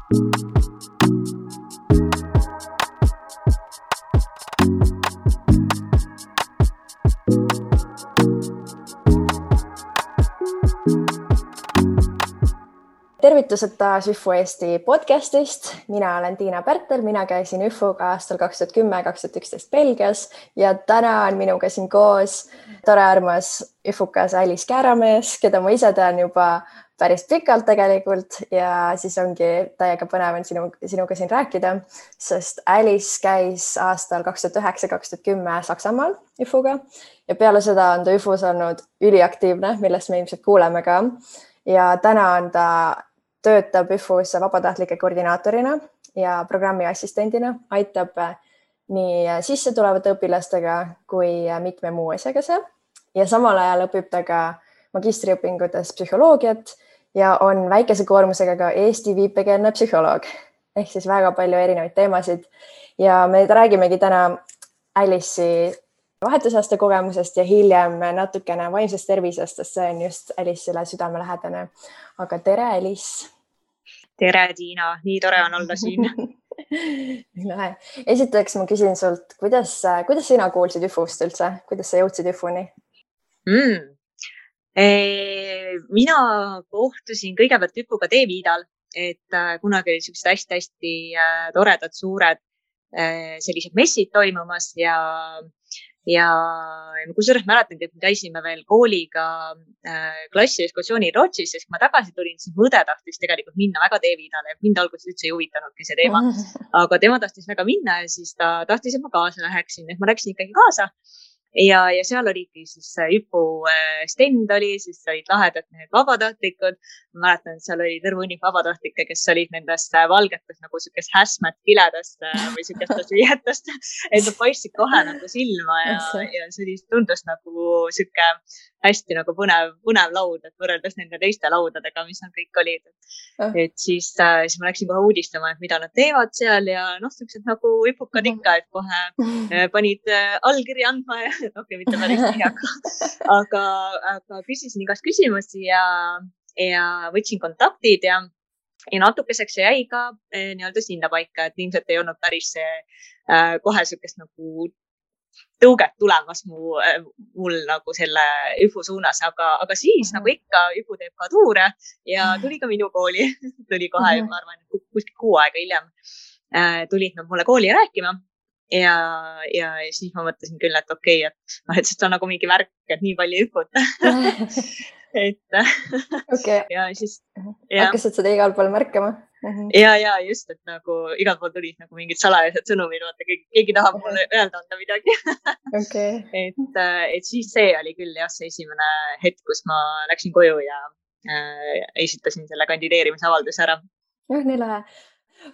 Tervitused taas ÜFU Eesti podcastist. Mina olen Tiina Pärtel, mina käisin ÜFUga aastal 2010-2011 Belgias ja täna on minuga siin koos tore armas ÜFUkas Alice Kääramees, keda ma ise tean juba päris pikalt tegelikult ja siis ongi täiega põnev on sinuga siin rääkida, sest Alice käis aastal 2009-2010 Saksamaal ÜFUga ja peale seda on ta ÜFUs olnud üliaktiivne, millest me ilmselt kuuleme ka. Ja täna on ta töötab ÜFUs vabatahtlike koordinaatorina ja programmi assistendina, aitab nii sisse tulevate õpilastega kui mitme muu asjaga seal. Ja samal ajal õpib ta ka magistriõpingutes psühholoogiat ja on väikese koormusega ka Eesti viipekeelne psühholoog. Ehk siis väga palju erinevaid teemasid. Ja me räägimegi täna Alice'i vahetusaasta kogemusest ja hiljem natukene vaimsest tervisest, sest see on just Alice'ile südamelähedane. Aga tere, Alice! Tere, Tiina! Nii tore on olla siin. Esiteks ma küsin sult, kuidas sina kuulsid ÜFUst üldse? Kuidas sa jõudsid ÜFUni? Mina kohtusin kõigepealt ÜFUga T-Viidal, et kunagi oli sellised hästi-hästi toredad suured sellised messid toimumas ja kusjuures mäletan, et me käisime veel kooliga klassi ekskursioonil Rootsis, sest kui ma tagasi tulin, siis mu õde tahtis tegelikult minna väga T-Viidale ja mind alguses üldse ei huvitanudki see teema, aga tema tahtis väga minna ja siis ta tahtis, et ma kaasa läheksin, et ma läksin ikkagi kaasa ja seal oligi siis ÜFU stend oli, siis olid lahedad need vabatahtlikud. Ma mäletan, et seal oli terve hunnik vabatahtlikke, kes olid nendest valgetest nagu sükest häsmet kiledast või sükestest viietest, et nad paistsid kohe nagu silma ja see tundus nagu süke hästi nagu põnev laud, et võrreldes nende teiste laudadega, mis nad kõik olid. Et siis ma läksin kohe uudistama, et mida nad teevad seal ja sellised nagu ÜFUkad ikka, et kohe panid allkiri andma ja mitte päris nii, aga küsisin igast küsimusi ja võtsin kontaktid ja natukeseks jäi ka nii-öelda sinna paika, et ilmselt ei olnud päris kohe sükest nagu tõuget tulemas mul nagu selle ÜFU suunas, aga siis nagu ikka ÜFU teeb ka tuure ja tuli ka minu kooli, tuli kohe, ma arvan, kuskil 6 aega hiljem tulid nad mulle kooli rääkima. Ja siis ma mõtlesin küll, et okei, et see on nagu mingi värk, et nii palju ÜFUt. Ja siis hakkasid seda igal pool märkama? Ja just, et nagu igal pool tulid nagu mingid salajased sõnumid, keegi tahab mulle öelda anda midagi. Et siis see oli küll see esimene hetk, kus ma läksin koju ja esitasin selle kandideerimisavalduse ära. Nii lahe.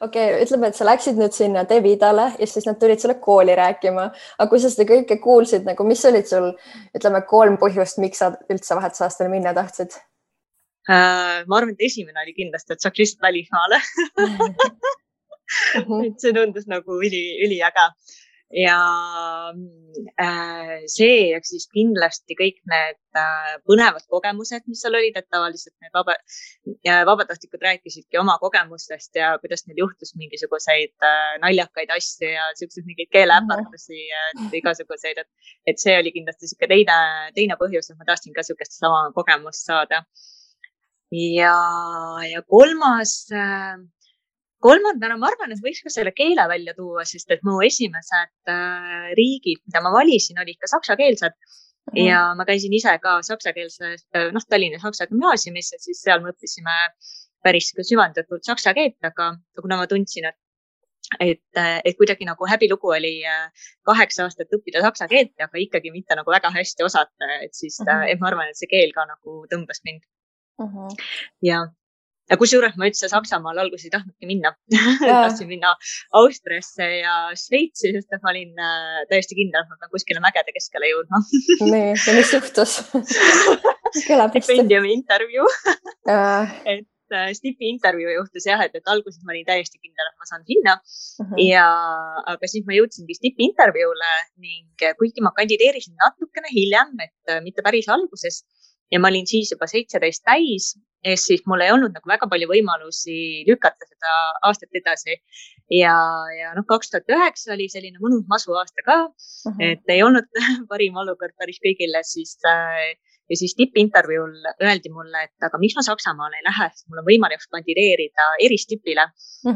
Okei, ütleme, et sa läksid nüüd sinna T-Viidale ja siis nad tulid sulle kooli rääkima. Aga kui sa seda kõike kuulsid, nagu mis olid sul, ütleme, 3 põhjust, miks sa üldse vahetusaastale minna tahtsid? Ma arvan, et esimene oli kindlasti, et saaks lihtsalt välismaale. Et see tundus nagu üliäge. Ja see ja siis kindlasti kõik need põnevad kogemused, mis seal olid, et tavaliselt need vabatahtlikud rääkisidki oma kogemustest ja kuidas neil juhtus mingisuguseid naljakaid asju ja selliseid mingeid keeleäpartusi ja igasuguseid, et see oli kindlasti teine põhjus, et ma tahtsin ka sellist sama kogemust saada. Ja kolmandana ma arvan, et võiks ka selle keele välja tuua, sest et mu esimesed riigid, mida ma valisin, olid ka saksakeelsed ja ma käisin ise ka saksakeelses, Tallinna Saksa gümnaasiumis ja siis seal me õppisime päris süvendatult saksa keelt, aga kuna ma tundsin, et kuidagi nagu häbilugu oli 8 aastat õppida saksa keelt, aga ikkagi mitte nagu väga hästi osata, et siis et ma arvan, et see keel ka nagu tõmbas mind. Ja kusjuures ma üldse Saksamaal alguses ei tahtnudki minna. Tahtsin minna Austriasse ja Šveitsi, sest ma olin täiesti kindel, et ma pean kuskile mägede keskele jõudma. Nii, ja mis juhtus? Stipendiumi intervjuu. Et Stipi intervjuu juhtus et alguses ma olin täiesti kindel, et ma saan sinna. Aga siis ma jõudsingi Stipi intervjuule ning kuigi ma kandideerisin natukene hiljem, et mitte päris alguses ja ma olin siis juba 17 täis siis mul ei olnud nagu väga palju võimalusi lükata seda aastat edasi. Ja 2009 oli selline mõnus masu aasta ka, et ei olnud parim olukord päris kõigile, ja siis tippintervjuul öeldi mulle, et aga miks ma Saksamaale ei lähe, sest mul on võimalik kandideerida eristipile.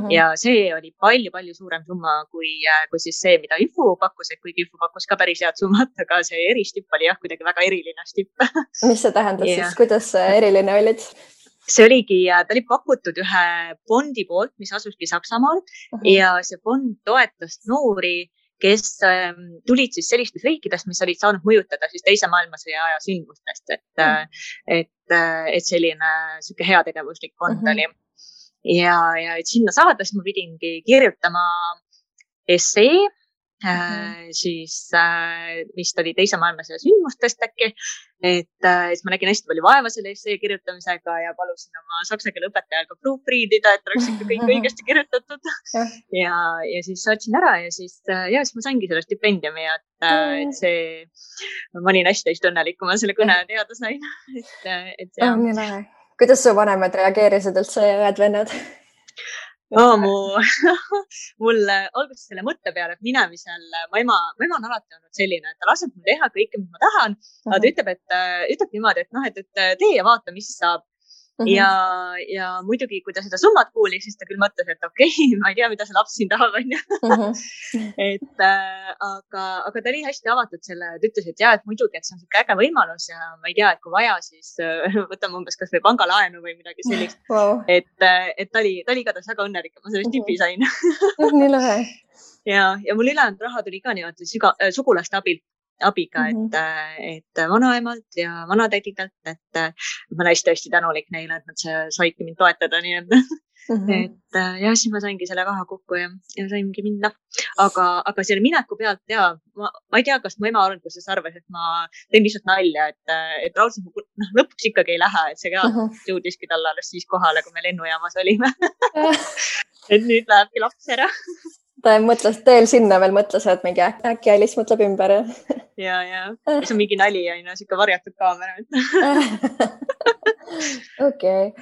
Ja see oli palju suurem summa kui siis see, mida Üfu pakkus, et kuigi Üfu pakkus ka päris head summat, aga see eristipp oli jah, kuidagi väga eriline stipp. Mis see tähendas siis, kuidas eriline olid? See oligi, ta oli pakutud ühe fondi poolt, mis asuski Saksamaal ja see fond toetas noori, kes tulid siis sellistest riikidest, mis olid saanud mõjutada siis teise maailmasõja aja sündmustest, et selline sihuke heategevuslik fond oli. Ja et sinna saada, siis ma pidingi kirjutama essee, siis vist oli teise maailmasõja sündmustest äkki, et ma nägin hästi palju vaeva selle essee kirjutamisega ja palusin oma saksa keele õpetajal ka proofreadida, et oleks ikka kõik õigesti kirjutatud. Ja siis saatsin ära ja siis ma saingi selle stipendiumi, et see, ma olin hästi õnnelik, kui ma selle kõne teada sain. Kuidas su vanemad reageerisid üldse õed-vennad? Mul alguses selle mõtte peale, et minemisel, mu ema on alati olnud selline, et ta laseb mul teha kõike, mis ma tahan, aga ta ütleb niimoodi, et tee ja vaata, mis saab. Ja muidugi, kui ta seda summat kuulis, siis ta küll mõtles, et okei, ma ei tea, mida see laps siin tahab, aga ta oli hästi avatud selle, ta ütles, et et muidugi, et see on siuke äge võimalus ja ma ei tea, et kui vaja, siis võtame umbes kas või pangalaenu või midagi sellist. Et ta oli igatahes väga õnnelik, et ma sellest tipi sain. Nii lahe. Ja mul ülejäänud raha tuli ka niimoodi sugulaste abiga, et vanaemalt ja vanatädidelt, et ma olen hästi tänulik neile, et nad saidki mind toetada, nii et siis ma saingi selle raha kokku ja saingi minna. Aga selle mineku pealt ma ei tea, kas mu ema alguses arvas, et ma teen lihtsalt nalja, et raudselt lõpuks ikkagi ei lähe, et see reaalselt jõudiski talle alles siis kohale, kui me lennujaamas olime. Et nüüd lähebki laps ära. Ta mõtles teel sinna veel mõtles, et mingi äkki Alice mõtleb ümber. Ja see on mingi nali ja siuke varjatud kaamera. Okei.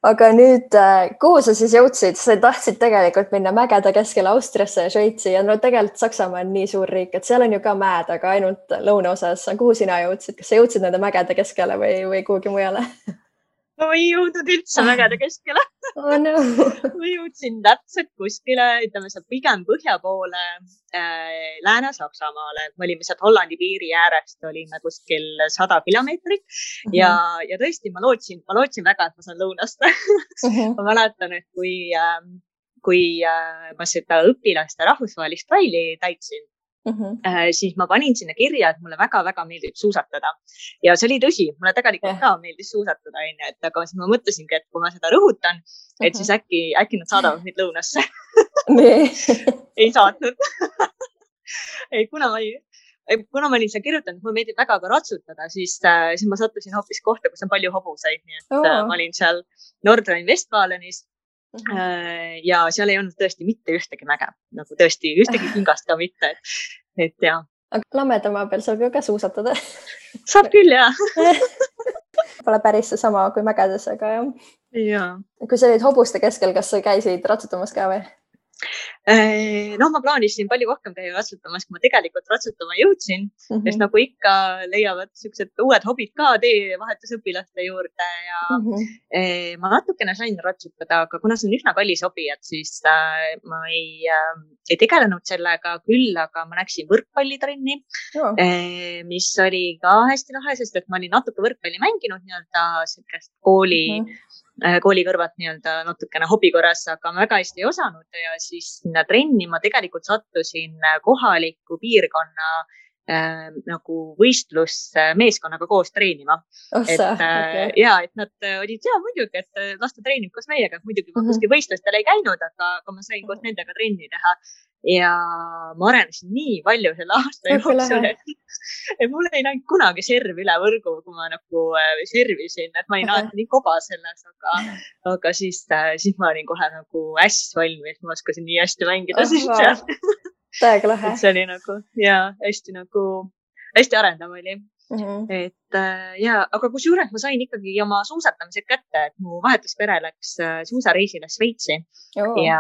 Aga nüüd, kuhu sa siis jõudsid? Sa tahtsid tegelikult minna mägede keskele Austriasse ja Šveitsi ja tegelikult Saksamaa on nii suur riik, et seal on ju ka mäed, aga ainult lõunaosas. Kuhu sina jõudsid? Kas sa jõudsid nende mägede keskele või kuhugi mujale? Ma ei jõudnud üldse mägede keskele. Oh no. Ma jõudsin täpselt kuskile, ütleme seal pigem põhja poole Lääne-Saksamaale. Me olime sealt Hollandi piiri äärest, olime kuskil 100 kilomeetrit ja tõesti, ma lootsin väga, et ma saan lõunast. Ma mäletan, et kui ma seda õpilaste rahvusvahelist traili täitsin, siis ma panin sinna kirja, et mulle väga meeldib suusatada. Ja see oli tõsi, mulle tegelikult ka meeldis suusatada, aga siis ma mõtlesingi, et kui ma seda rõhutan, et siis äkki nad saadavad mind lõunasse. Ei saatnud. Kuna ma olin seal kirjutanud, et mulle meeldib väga ka ratsutada, siis ma sattusin hoopis kohta, kus on palju hobuseid. Nii et ma olin seal Nordrhein-Westfalenis. Ja seal ei olnud tõesti mitte ühtegi mäge, nagu tõesti ühtegi kingast ka mitte, et jah. Aga Lammedamaa peal saab ju ka suusatada. Saab küll, jah. Pole päris see sama kui mägedes, aga jah. Ja. Kui sa olid hobuste keskel, kas sa käisid ratsutamas ka või? Ma plaanisin palju rohkem käia ratsutamas, kui ma tegelikult ratsutama jõudsin, sest nagu ikka leiavad siuksed uued hobid ka teevahetusõpilaste juurde ja ma natukene sain ratsutada, aga kuna see on üsna kallis hobi, et siis ma ei tegelenud sellega küll, aga ma läksin võrkpallitrenni, mis oli ka hästi lahe, sest et ma olin natuke võrkpalli mänginud nii-öelda sellist kooli kõrvat nii-öelda natukene hobi korras, aga ma väga hästi ei osanud ja siis sinna trenni ma tegelikult sattusin kohaliku piirkonna nagu võistlusmeeskonnaga koos treenima. Et nad olid muidugi, et lasta treenib koos meiega, et muidugi ma kuskil võistlustel ei käinud, aga ma sain koos nendega trenni teha ja ma arenesin nii palju selle aasta jooksul, et mul ei näinud kunagi serv üle võrgu, kui ma nagu servisin, et ma olin alati nii koba selles, aga siis ma olin kohe nagu hästi valmis, ma oskasin nii hästi mängida siis seal. Täiega lahe. See oli nagu, hästi arendav oli. et ja, aga kusjuures ma sain ikkagi oma suusatamised kätte, et mu vahetuspere läks suusareisile Šveitsi ja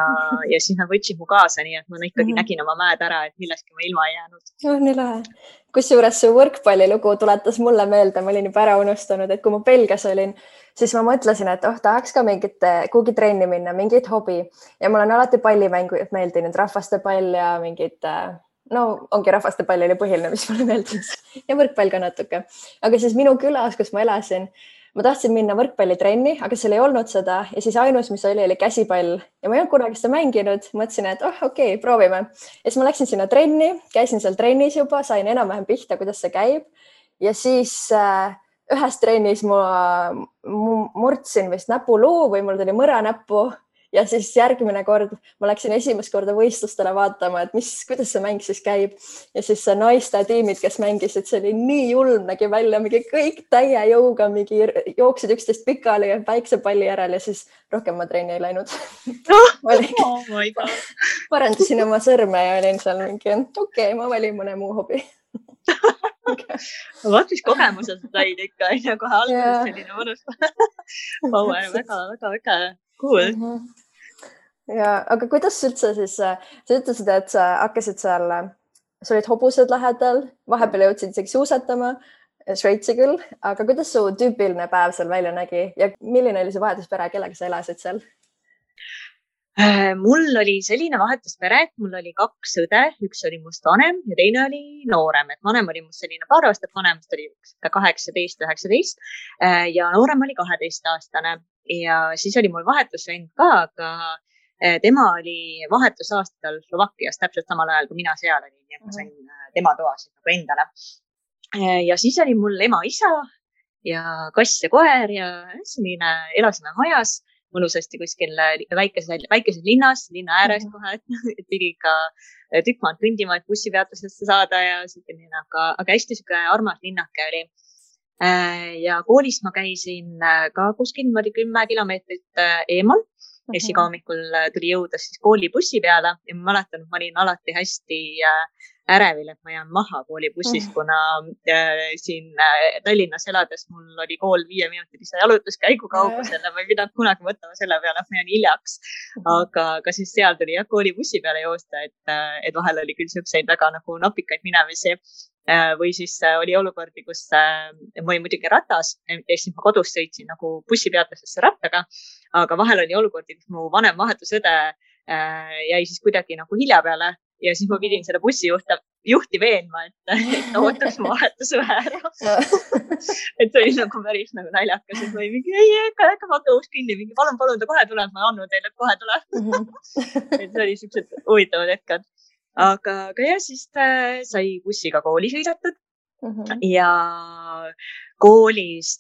siis nad võtsid mu kaasa, nii et ma ikkagi nägin oma mäed ära, et millestki ma ilma ei jäänud. Nii lahe. Kusjuures su võrkpallilugu tuletas mulle meelde, ma olin juba ära unustanud, et kui ma Belgias olin, siis ma mõtlesin, et tahaks ka kuhugi trenni minna, mingit hobi ja mul on alati pallimängud meeldinud, rahvastepall ja mingid, no ongi rahvastepall oli põhiline, mis mulle meeldis ja võrkpall ka natuke. Aga siis minu külas, kus ma elasin, ma tahtsin minna võrkpallitrenni, aga seal ei olnud seda ja siis ainus, mis oli käsipall ja ma ei olnud kunagi seda mänginud. Mõtlesin, et okei, proovime. Ja siis ma läksin sinna trenni, käisin seal trennis juba, sain enam-vähem pihta, kuidas see käib ja siis ühes trennis ma murdsin vist näpuluu või mul tuli mõra näppu ja siis järgmine kord ma läksin esimest korda võistlustele vaatama, et kuidas see mäng siis käib ja siis see naiste tiimid, kes mängisid, see oli nii julm, nägi välja, mingi kõik täie jõuga, mingi jooksid üksteist pikali ja päiksepalli järel ja siis rohkem ma trenni ei läinud. Parandasin oma sõrme ja olin seal mingi, okei, ma valin mõne muu hobi. Vaat mis kogemused said ikka, kohe alguses selline mõnus power, väga cool. Ja, aga kuidas üldse siis, sa ütlesid, et sa hakkasid seal, sa olid hobused lähedal, vahepeal jõudsid isegi suusatama, Šveitsi küll, aga kuidas su tüüpiline päev seal välja nägi ja milline oli see vahetuspere, kellega sa elasid seal? Mul oli selline vahetuspere, et mul oli 2 õde, üks oli must vanem ja teine oli noorem, et vanem oli must selline paar aastat vanem, must oli 18-19 ja noorem oli 12-aastane ja siis oli mul vahetusvend ka, aga tema oli vahetusaastal Slovakkias täpselt samal ajal, kui mina seal olin ja ma sain tema toasid nagu endale. Ja siis oli mul ema-isa ja kass ja koer ja selline elasime majas mõnusasti kuskil väikeses linnas, linna ääres kohe, et pidi ikka tükk maad kõndima, et bussipeatusesse saada ja selline, aga hästi siuke armas linnake oli. Ja koolis ma käisin ka kuskil 10 kilomeetrit eemal ja siis iga hommikul tuli jõuda siis koolibussi peale ja ma mäletan, et ma olin alati hästi ärevil, et ma jään maha koolibussis, kuna siin Tallinnas elades mul oli kool 5-minutilise jalutuskäigu kaugusel ja ma ei pidanud kunagi mõtlema selle peale, et ma jään hiljaks. Aga siis seal tuli koolibussi peale joosta, et vahel oli küll siukseid väga nagu napikaid minemisi või siis oli olukordi, kus ma olin muidugi ratas ja siis ma kodus sõitsin nagu bussipeatusesse rattaga, aga vahel oli olukordi, kus mu vanem vahetusõde jäi siis kuidagi nagu hilja peale ja siis ma pidin selle bussijuhti veenma, et ta ootaks mu vahetusõe ära. Et see oli nagu päris nagu naljakas, et ma ei mingi, äkka vaata uus kinni, mingi palun, ta kohe tuleb, ma annan teile, et kohe tuleb. Et see oli siuksed huvitavad hetked. Aga jah, siis sai bussiga kooli sõidetud ja koolis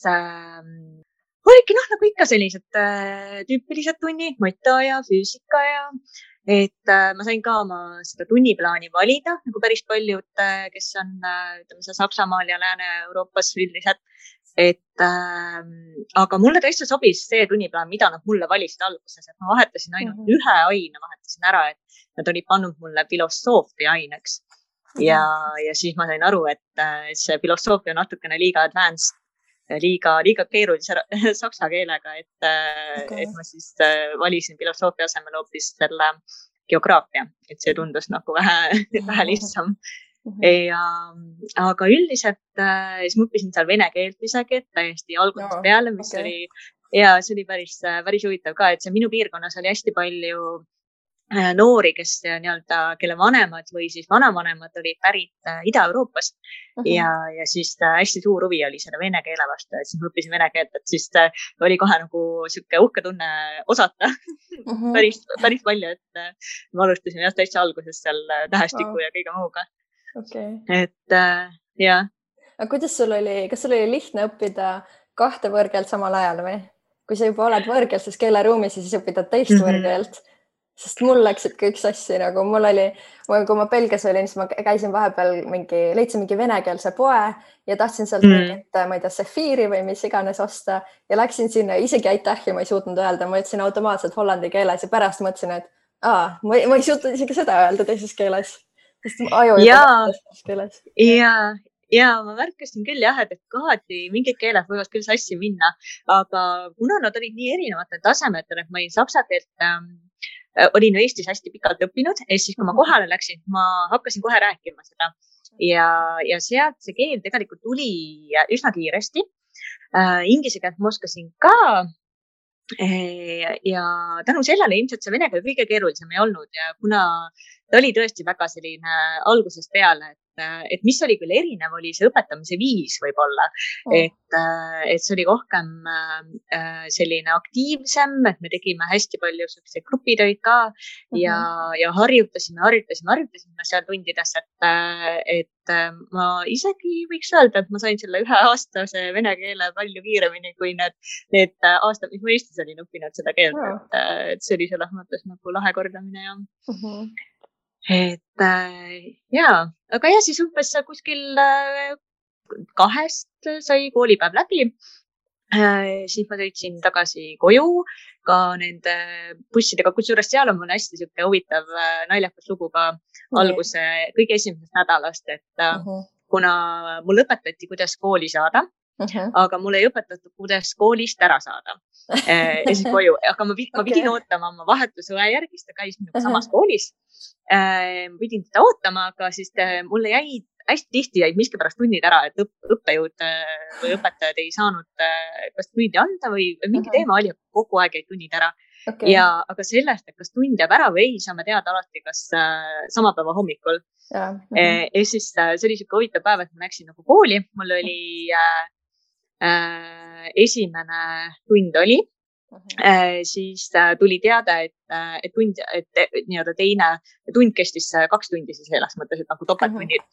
oligi nagu ikka sellised tüüpilised tunnid, mata ja füüsika ja et ma sain ka oma seda tunniplaani valida, nagu päris paljud, kes on ütleme, Saksamaal ja Lääne-Euroopas üldiselt. Aga mulle tõesti sobis see tunniplaan, mida nad mulle valisid alguses, et ma vahetasin ainult ühe aine, vahetasin ära, et nad olid pannud mulle filosoofia aineks ja siis ma sain aru, et see filosoofia on natukene liiga advanced, liiga keerulise saksa keelega, et ma siis valisin filosoofia asemel hoopis selle geograafia, et see tundus nagu vähe lihtsam. Aga üldiselt siis ma õppisin seal vene keelt isegi, et täiesti algusest peale, mis oli, ja see oli päris huvitav ka, et see minu piirkonnas oli hästi palju noori, kes nii-öelda, kelle vanemad või siis vanavanemad olid pärit Ida-Euroopast ja siis hästi suur huvi oli selle vene keele vastu, et siis ma õppisin vene keelt, et siis oli kohe nagu siuke uhke tunne osata päris palju, et ma alustasin jah täitsa alguses seal tähestiku ja kõige muuga. Et jah. Aga kuidas sul oli, kas sul oli lihtne õppida 2 võõrkeelt samal ajal või? Kui sa juba oled võõrkeelses keeleruumis ja siis õpidad teist võõrkeelt? Sest mul läksid kõik sassi, nagu mul oli, kui ma Belgias olin, siis ma käisin vahepeal leidsin mingi venekeelse poe ja tahtsin sealt mingit, ma ei tea, sefiiri või mis iganes osta ja läksin sinna, isegi aitähi ma ei suutnud öelda, ma ütlesin automaatselt hollandi keeles ja pärast mõtlesin, et ma ei suutnud isegi seda öelda teises keeles, sest aju ei teises keeles. ja ma märkasin küll jah, et kohati mingid keeled võivad küll sassi minna, aga kuna nad olid nii erinevatel tasemetel, et ma olin saksa keelt olin Eestis hästi pikalt õppinud ja siis, kui ma kohale läksin, ma hakkasin kohe rääkima seda ja sealt see keel tegelikult tuli üsna kiiresti. Inglise keelt ma oskasin ka. Ja tänu sellele ilmselt see vene keel kõige keerulisem ei olnud ja kuna ta oli tõesti väga selline algusest peale, et mis oli küll erinev, oli see õpetamise viis võib-olla, et see oli rohkem selline aktiivsem, et me tegime hästi palju selliseid grupitöid ka ja harjutasime seal tundides, et ma isegi võiks öelda, et ma sain selle 1 aastase vene keele palju kiiremini kui need aastad, mis ma Eestis olin õppinud seda keelt, et see oli selles mõttes nagu lahe kordamine ja et aga ja siis umbes kuskil 2 sai koolipäev läbi. Siis ma sõitsin tagasi koju ka nende bussidega, kusjuures seal on mul hästi siuke huvitav naljakas lugu ka alguse kõige esimesest nädalast, et kuna mul õpetati, kuidas kooli saada, aga mul ei õpetatud, kuidas koolist ära saada. Ja siis koju, aga ma pidin ootama oma vahetusõe järgi, ta käis minuga samas koolis. Ma pidin teda ootama, aga siis mulle hästi tihti jäid miskipärast tunnid ära, et õppejõud või õpetajad ei saanud kas tundi anda või mingi teema oli, kogu aeg jäid tunnid ära. Aga sellest, et kas tund jääb ära või ei, saame teada alati, kas sama päeva hommikul. Ja siis see oli siuke huvitav päev, et ma läksin nagu kooli, mul oli esimene tund oli, siis tuli teada, et nii-öelda teine tund kestis 2 tundi siis selles mõttes, et nagu topelttunnid.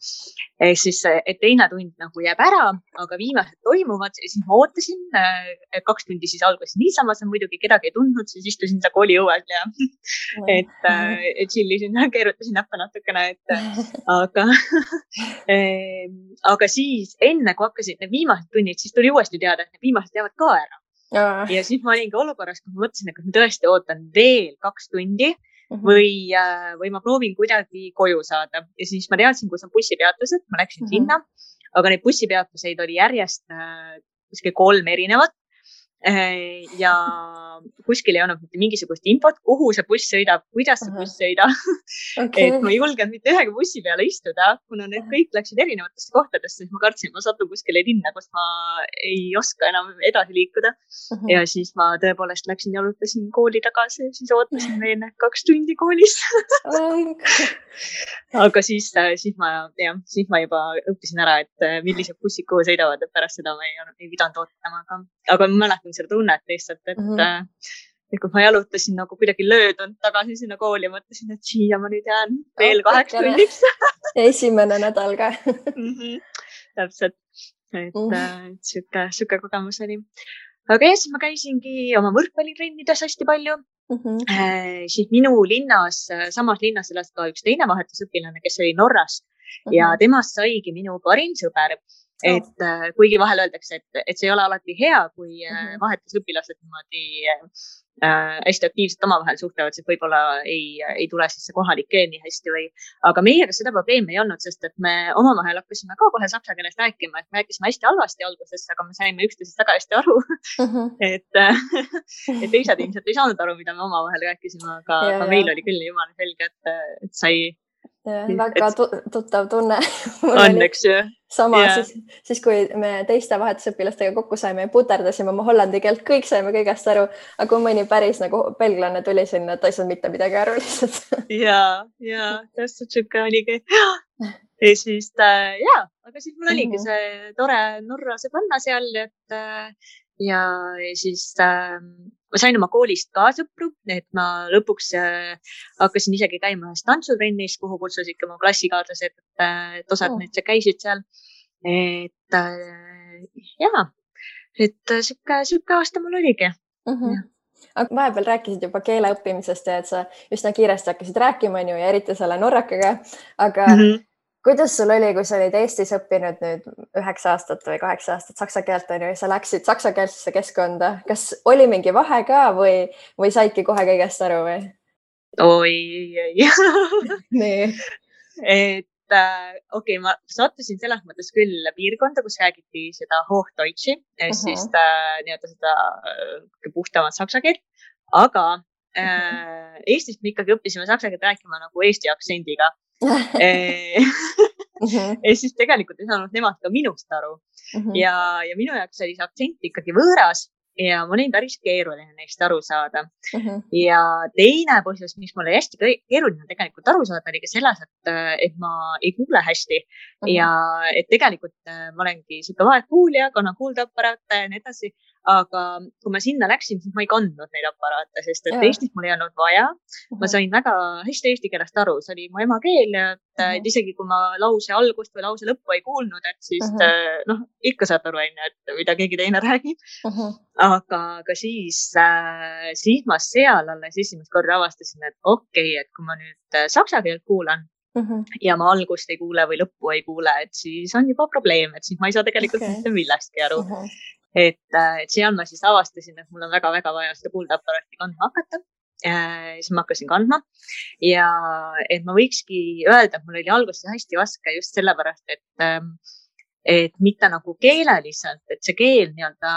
Siis, et teine tund nagu jääb ära, aga viimased toimuvad ja siis ma ootasin, 2 tundi siis algas niisama, see muidugi kedagi ei tundnud, siis istusin seal kooli õuel ja et chillisin, keerutasin näppe natukene, aga siis enne, kui hakkasid need viimased tunnid, siis tuli uuesti teada, et need viimased jäävad ka ära. Ja siis ma olingi olukorras, kui ma mõtlesin, et ma tõesti ootan veel 2 tundi või ma proovin kuidagi koju saada. Ja siis ma teadsin, kus on bussipeatused, ma läksin sinna, aga neid bussipeatuseid oli järjest kuskil 3 erinevat. Ja kuskil ei olnud mitte mingisugust infot, kuhu see buss sõidab, kuidas see buss sõidab. Et ma ei julgenud mitte ühegi bussi peale istuda, kuna need kõik läksid erinevatesse kohtadesse, siis ma kartsin, ma satun kuskile linna, kus ma ei oska enam edasi liikuda. Ja siis ma tõepoolest läksin ja jalutasin kooli tagasi ja siis ootasin veel 2 tundi koolis. Aga siis ma juba õppisin ära, et millised bussid kuhu sõidavad, et pärast seda ma ei pidanud ootama. Aga ma mäletan seda tunnet lihtsalt, et kui ma jalutasin nagu kuidagi löödund tagasi sinna kooli ja mõtlesin, et siia ma nüüd jään veel 8 tunniks. Esimene nädal ka. Täpselt, et siuke kogemus oli. Aga siis ma käisingi oma võrkpallitrennides hästi palju. Siis minu linnas, samas linnas elas ka üks teine vahetusõpilane, kes oli Norrast ja temast saigi minu parim sõber. Et kuigi vahel öeldakse, et see ei ole alati hea, kui vahetusõpilased niimoodi hästi aktiivselt omavahel suhtlevad, siis võib-olla ei tule siis see kohalik keel nii hästi aga meiega seda probleemi ei olnud, sest et me omavahel hakkasime ka kohe saksa keeles rääkima, et me rääkisime hästi halvasti alguses, aga me saime üksteisest väga hästi aru. Et teised ilmselt ei saanud aru, mida me omavahel rääkisime, aga meil oli küll jumala selge, et sai väga tuttav tunne. Õnneks, jah. Sama, siis kui me teiste vahetusõpilastega kokku saime ja puterdasime oma hollandi keelt, kõik saime kõigest aru, aga kui mõni päris nagu belglane tuli sinna, et ta ei saanud mitte midagi aru lihtsalt. Ja, täpselt siuke oligi. Ja siis, aga siis mul oligi see tore Norra sõbranna seal, ja siis ma sain oma koolist ka sõpru, et ma lõpuks hakkasin isegi käima ühes tantsutrennis, kuhu kutsusid mu klassikaadlased, et osad need käisid seal. Et siuke aasta mul oligi. Aga vahepeal rääkisid juba keele õppimisest ja et sa üsna kiiresti hakkasid rääkima ja eriti selle norrakaga, aga kuidas sul oli, kui sa olid Eestis õppinud nüüd 9 aastat või 8 aastat saksa keelt ja sa läksid saksakeelsesse keskkonda? Kas oli mingi vahe ka või saidki kohe kõigest aru või? Oi. Nii. Et okei, ma sattusin selles mõttes küll piirkonda, kus räägiti seda Hochdeutshi, siis nii-öelda seda puhtamat saksa keelt, aga Eestis me ikkagi õppisime saksa keelt rääkima nagu Eesti aktsendiga. Ja siis tegelikult ei saanud nemad ka minust aru. Ja minu jaoks oli see aktsent ikkagi võõras ja mul oli päris keeruline neist aru saada. Ja teine põhjus, mis mul oli hästi keeruline tegelikult aru saada, oli ka selles, et ma ei kuule hästi ja et tegelikult ma olengi siuke vaegkuulja, kannan kuuldeaparaate ja nii edasi. Aga kui ma sinna läksin, siis ma ei kandnud neid aparaate, sest et Eestis mul ei olnud vaja. Ma sain väga hästi eesti keelest aru, see oli mu emakeel ja et isegi kui ma lause algust või lause lõppu ei kuulnud, et siis ikka saad aru, et mida keegi teine räägib. Aga siis ma seal alles esimest korda avastasin, et okei, et kui ma nüüd saksa keelt kuulan ja ma algust ei kuule või lõppu ei kuule, et siis on juba probleem, et siis ma ei saa tegelikult mitte millestki aru. Et seal ma siis avastasin, et mul on väga-väga vaja seda kuuldeaparaati kandma hakata. Siis ma hakkasin kandma ja et ma võikski öelda, et mul oli alguses hästi raske just sellepärast, et mitte nagu keeleliselt, et see keel nii-öelda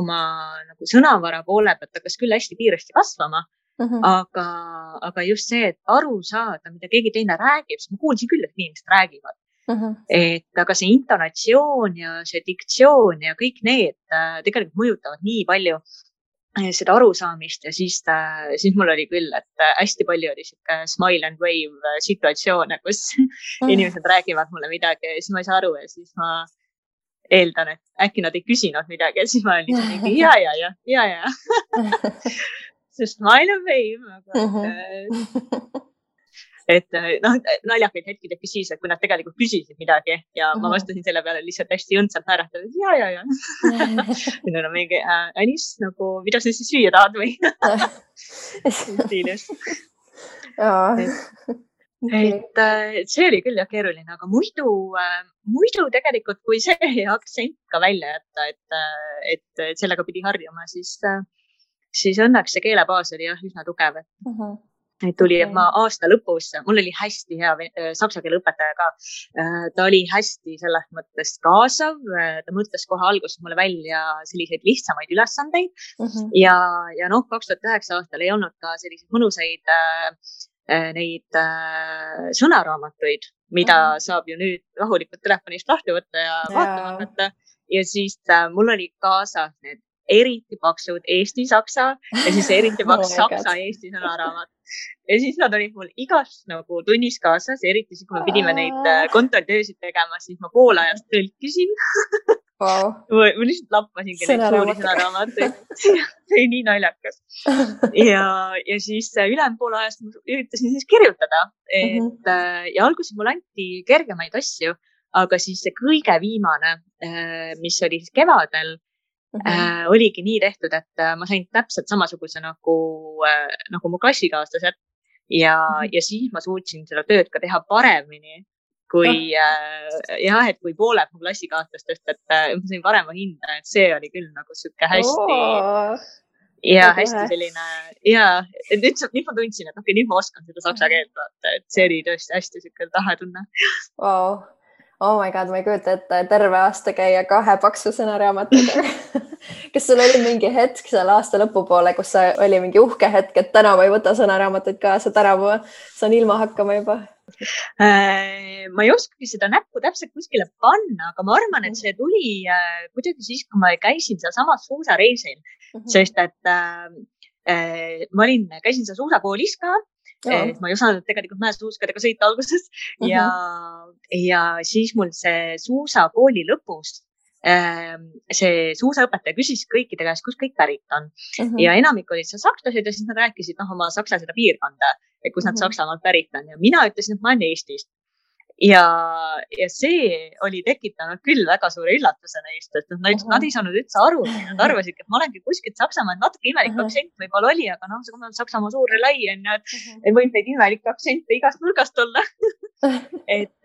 oma nagu sõnavara poole pealt hakkas küll hästi kiiresti kasvama, aga just see, et aru saada, mida keegi teine räägib, siis ma kuulsin küll, et inimesed räägivad. Et aga see intonatsioon ja see diktsioon ja kõik need tegelikult mõjutavad nii palju seda arusaamist ja siis mul oli küll, et hästi palju oli siuke smile and wave situatsioone, kus inimesed räägivad mulle midagi ja siis ma ei saa aru ja siis ma eeldan, et äkki nad ei küsinud midagi ja siis ma olin mingi ja. See smile and wave, aga et naljakaid hetki tekkis siis, et kui nad tegelikult küsisid midagi ja ma vastasin selle peale lihtsalt hästi õndsalt naeratades ja. Nüüd on mingi Anis, nagu mida sa siis süüa tahad või? Stiilis. Et see oli küll jah keeruline, aga muidu tegelikult, kui see aktsent ka välja jätta, et sellega pidi harjuma, siis õnneks see keelebaas oli jah üsna tugev. Et tuli, et ma aasta lõpus, mul oli hästi hea saksa keele õpetaja ka. Ta oli hästi selles mõttes kaasav. Ta mõtles kohe alguses mulle välja selliseid lihtsamaid ülesandeid. Ja 2009 aastal ei olnud ka selliseid mõnusaid neid sõnaraamatuid, mida saab ju nüüd rahulikult telefonist lahti võtta ja vaatama hakata. Ja siis mul oli kaasas need eriti paksud Eesti-saksa ja siis eriti paks saksa-Eesti sõnaraamat. Ja siis nad olid mul igast nagu tunnis kaasas, eriti siis, kui me pidime neid kontrolltöösid tegema, siis ma pool ajast tõlkisin. Ma lihtsalt lappasingi neid suuri sõnaraamatuid. See oli nii naljakas. Ja siis ülejäänud pool ajast ma üritasin siis kirjutada. Ja alguses mul anti kergemaid asju, aga siis see kõige viimane, mis oli siis kevadel, oligi nii tehtud, et ma sain täpselt samasuguse nagu mu klassikaaslased ja siis ma suutsin seda tööd ka teha paremini kui et kui pooled mu klassikaaslastest, et ma sain parema hinda, et see oli küll nagu siuke hästi hästi selline et nüüd ma tundsin, et okei, nüüd ma oskan seda saksa keelt vaata, et see oli tõesti hästi siuke tahe tunne. Oh my god, ma ei kujuta ette terve aasta käia 2 paksu sõnaraamatuga. Kas sul oli mingi hetk seal aasta lõpupoole, kus oli mingi uhke hetk, et täna ma ei võta sõnaraamatuid kaasa, täna ma saan ilma hakkama juba? Ma ei oskagi seda näppu täpselt kuskile panna, aga ma arvan, et see tuli kuidagi siis, kui ma käisin seal samas suusareisil, sest et ma käisin seal suusakoolis ka. Ma ei osanud tegelikult mäesuuskadega sõita alguses ja siis mul see suusakooli lõpus see suusaõpetaja küsis kõikide käest, kus kõik pärit on ja enamik olid seal sakslased ja siis nad rääkisid oma saksa seda piirkonda, kus nad Saksamaalt pärit on ja mina ütlesin, et ma olen Eestist. Ja see oli tekitanud küll väga suure üllatuse neist, et nad ei saanud üldse aru, nad arvasid, et ma olengi kuskilt Saksamaal, natuke imelik aktsent võib-olla oli, aga see on Saksamaa suur lai, et võib neid imelikke aktsente igast nurgast olla. Et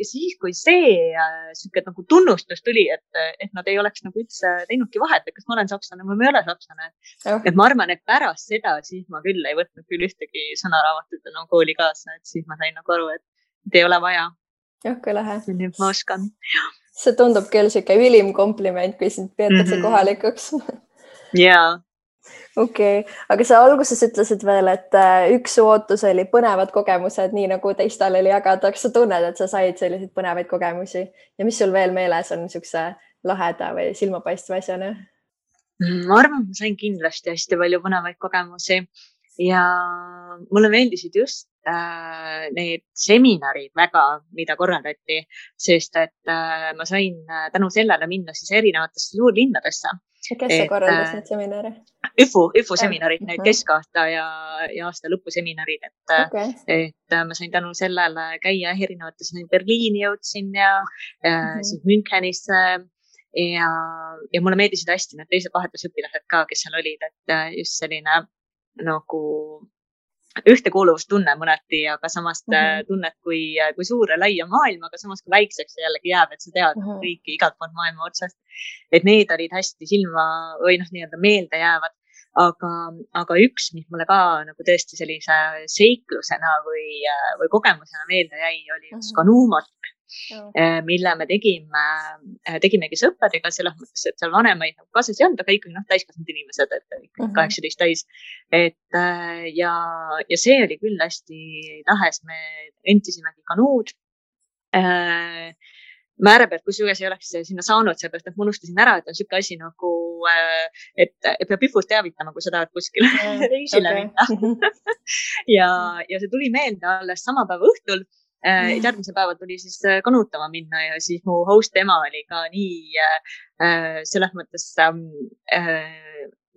siis, kui see nagu tunnustus tuli, et nad ei oleks nagu üldse teinudki vahet, et kas ma olen sakslane või ma ei ole sakslane. Et ma arvan, et pärast seda siis ma küll ei võtnud küll ühtegi sõnaraamatut kooli kaasa, et siis ma sain nagu aru, et ei ole vaja. Kui lahe. Nüüd ma oskan. See tundub küll siuke ülim kompliment, kui sind peetakse kohalikuks. Jaa. Okei, aga sa alguses ütlesid veel, et üks ootus oli põnevad kogemused, nii nagu teistel oli jagada. Kas sa tunned, et sa said selliseid põnevaid kogemusi ja mis sul veel meeles on niisuguse laheda või silmapaistva asjana? Ma arvan, ma sain kindlasti hästi palju põnevaid kogemusi ja mulle meeldisid just need seminarid väga, mida korraldati, sest et ma sain tänu sellele minna siis erinevatesse suurlinnadesse. Kes sa korraldas need seminare? ÜFU seminarid, need keskaasta ja aasta lõpu seminarid, et ma sain tänu sellele käia erinevates, Berliini jõudsin ja siis Münchenisse ja mulle meeldisid hästi need teised vahetusõpilased ka, kes seal olid, et just selline nagu ühtekuuluvustunne mõneti, aga samas tunnet kui suure laia maailma, aga samas kui väikseks jällegi jääb, et sa tead kõiki igalt poolt maailma otsast. Et need olid hästi silma või nii-öelda meelde jäävad. Aga üks, mis mulle ka nagu tõesti sellise seiklusena või kogemusena meelde jäi, oli üks kanuumatk, mille me tegimegi sõpradega selles mõttes, et seal vanemaid kaasas ei olnud, aga ikkagi täiskasvanud inimesed, et 18 täis. Ja see oli küll hästi lahes, me rentisimegi kanuud. Määra pealt, kusjuures ei oleks sinna saanud, seepärast, et ma unustasin ära, et on siuke asi nagu, et peab IFUst teavitama, kui sa tahad kuskile reisile minna. ja see tuli meelde alles sama päeva õhtul. Järgmise päeval tuli siis kanuutama minna ja siis mu host ema oli ka nii selles mõttes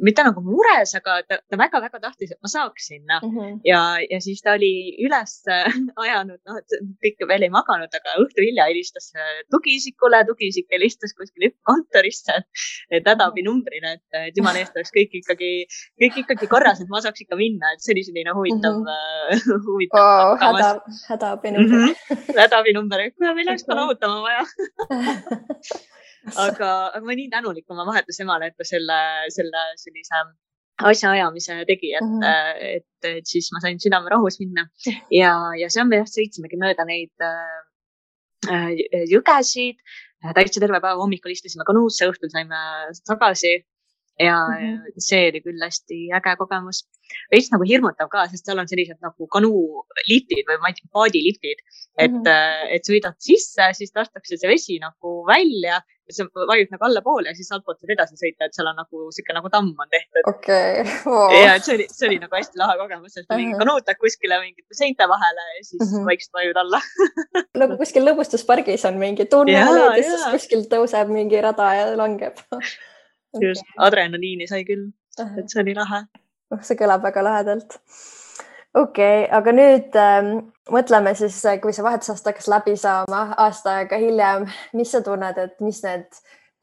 mitte nagu mures, aga ta väga-väga tahtis, et ma saaks sinna. Ja siis ta oli üles ajanud, et kõik veel ei maganud, aga õhtu hilja helistas tugiisikule, tugiisik helistas kuskil kontorisse, et hädaabinumbrine, et jumala eest oleks kõik ikkagi korras, et ma saaks ikka minna, et see oli selline huvitav. Hädaabinumber. Hädaabinumber, kui meil oleks kanautama vaja. Aga ma nii tänulik oma vahetusemale, et ta selle sellise asjaajamise tegi, et siis ma sain südame rahus minna ja see on me sõitsimegi mööda neid jõgesid, täitsa terve päeva hommikul istusime kanuusse, õhtul saime tagasi ja see oli küll hästi äge kogemus. Veits nagu hirmutav ka, sest seal on sellised nagu kanuuliftid või paadiliftid, et sõidad sisse, siis lastakse see vesi nagu välja ja see vajub nagu allapoole ja siis altpoolt saad edasi sõita, et seal on nagu siuke nagu tamm on tehtud. Ja see oli nagu hästi lahe kogemus, et mingi kanuutad kuskile mingite seinte vahele ja siis vaikselt vajud alla. Nagu kuskil lõbustuspargis on mingi tunnel ja siis kuskil tõuseb mingi rada ja langeb. Just, adrenaliini sai küll, et see oli lahe. See kõlab väga lahedalt. Aga nüüd mõtleme siis, kui see vahetusaasta hakkas läbi saama aasta aega hiljem, mis sa tunned, et mis need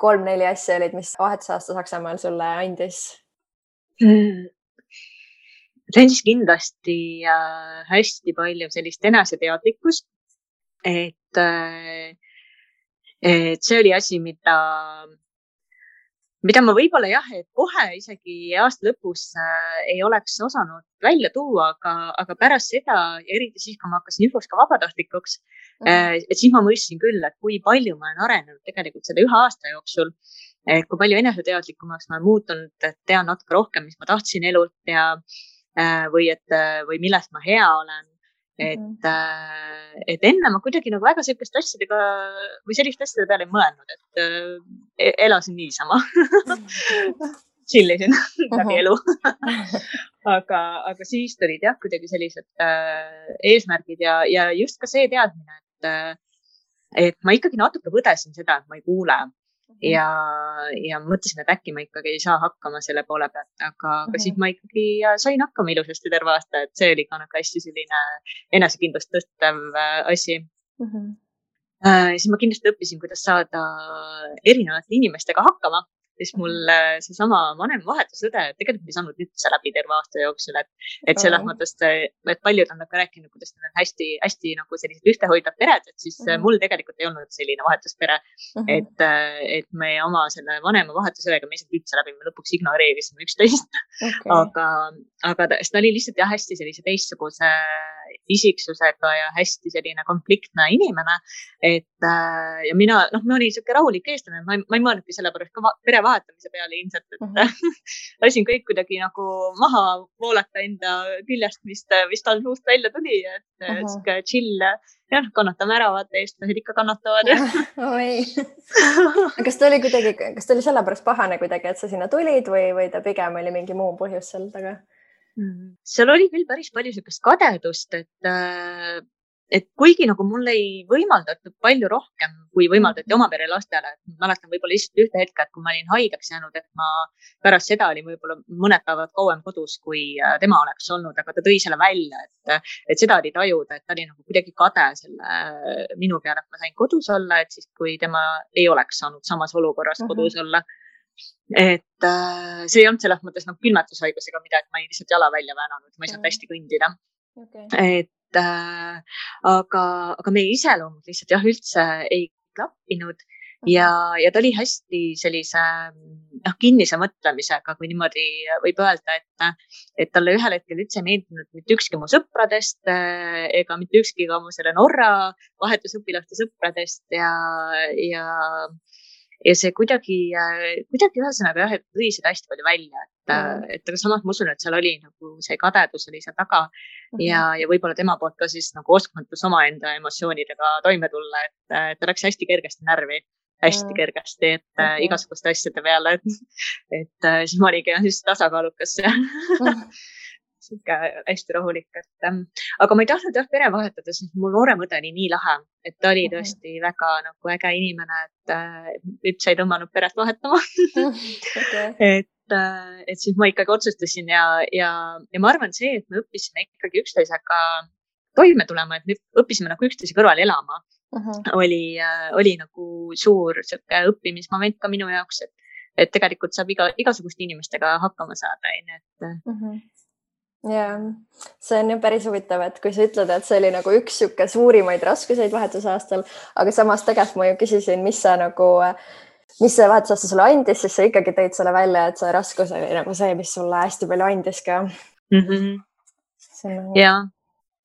3-4 asja olid, mis vahetusaasta Saksamaal sulle andis? See andis kindlasti hästi palju sellist eneseteadlikkust, et see oli asi, mida ma võib-olla et kohe isegi aasta lõpus ei oleks osanud välja tuua, aga pärast seda ja eriti siis, kui ma hakkasin IFUs ka vabatahtlikuks, et siis ma mõistsin küll, et kui palju ma olen arenenud tegelikult selle 1 aasta jooksul, kui palju eneseteadlikumaks ma olen muutunud, et tean natuke rohkem, mis ma tahtsin elult ja või millest ma hea olen. Et enne ma kuidagi nagu väga selliste asjadega või selliste asjade peale ei mõelnud, et elasin niisama. Chillisin läbi elu. Aga siis tulid kuidagi sellised eesmärgid ja just ka see teadmine, et ma ikkagi natuke võdesin seda, et ma ei kuule. Ja mõtlesin, et äkki ma ikkagi ei saa hakkama selle poole pealt, aga siis ma ikkagi sain hakkama ilusasti terve aasta, et see oli ka nagu hästi selline enesekindlust tõstev asi. Siis ma kindlasti õppisin, kuidas saada erinevate inimestega hakkama, siis mul seesama vanem vahetusõde tegelikult ei saanud üldse läbi terve aasta jooksul, et selles mõttes, et paljud on ka rääkinud, kuidas need on hästi nagu sellised ühtehoidvad pered, et siis mul tegelikult ei olnud selline vahetuspere, et me oma selle vanema vahetusõega me isegi üldse läbi, me lõpuks ignoreerisime üksteist, aga ta oli lihtsalt hästi sellise teistsuguse isiksusega ja hästi selline konfliktne inimene. Ja mina, ma olin siuke rahulik eestlane, ma ei mõelnudki selle pärast ka pere vahetamise peale ilmselt, et lasin kõik kuidagi nagu maha voolata enda küljest, mis tal suust välja tuli, et siuke chill, jah, kannatame ära, vaata, eestlased ikka kannatavad. Kas ta oli sellepärast pahane kuidagi, et sa sinna tulid või ta pigem oli mingi muu põhjus seal taga? Seal oli küll päris palju siukest kadedust, et kuigi nagu mul ei võimaldatud palju rohkem, kui võimaldati oma pere lastele. Ma mäletan võib-olla lihtsalt ühte hetke, et kui ma olin haigeks jäänud, et ma pärast seda olin võib-olla mõned päevad kauem kodus, kui tema oleks olnud, aga ta tõi selle välja, et seda oli tajuda, et ta oli nagu kuidagi kade selle minu peale, et ma sain kodus olla, et siis kui tema ei oleks saanud samas olukorras kodus olla. Et see ei olnud selles mõttes nagu külmetushaigusega midagi, ma ei lihtsalt jala välja väänanud, ma ei saanud hästi kõndida. Aga meie iseloomud lihtsalt jah, üldse ei klappinud ja ta oli hästi sellise kinnise mõtlemisega, kui niimoodi võib öelda, et talle ühel hetkel üldse ei meeldinud mitte ükski mu sõpradest ega mitte ükski ka mu selle Norra vahetusõpilaste sõpradest ja see kuidagi ühesõnaga jah, et tõi seda hästi palju välja, et aga samas ma usun, et seal oli nagu see kadedus oli seal taga ja võib-olla tema poolt ka siis nagu oskmatus omaenda emotsioonidega toime tulla, et ta läks hästi kergesti närvi, hästi kergesti, et igasuguste asjade peale, et siis ma oligi siis tasakaalukas siuke hästi rahulik, aga ma ei tahtnud jah pere vahetada, sest mul noorem õde oli nii lahe, et ta oli tõesti väga nagu äge inimene, et üldse ei tõmmanud peret vahetama. Et siis ma ikkagi otsustasin ja ma arvan see, et me õppisime ikkagi üksteisega toime tulema, et me õppisime nagu üksteise kõrval elama. Oli nagu suur siuke õppimismoment ka minu jaoks, et tegelikult saab igasuguste inimestega hakkama saada. Ja see on ju päris huvitav, et kui sa ütled, et see oli nagu üks siuke suurimaid raskuseid vahetusaastal, aga samas tegelikult ma ju küsisin, mis see vahetusaasta sulle andis, siis sa ikkagi tõid selle välja, et see raskus oli nagu see, mis sulle hästi palju andis ka. Ja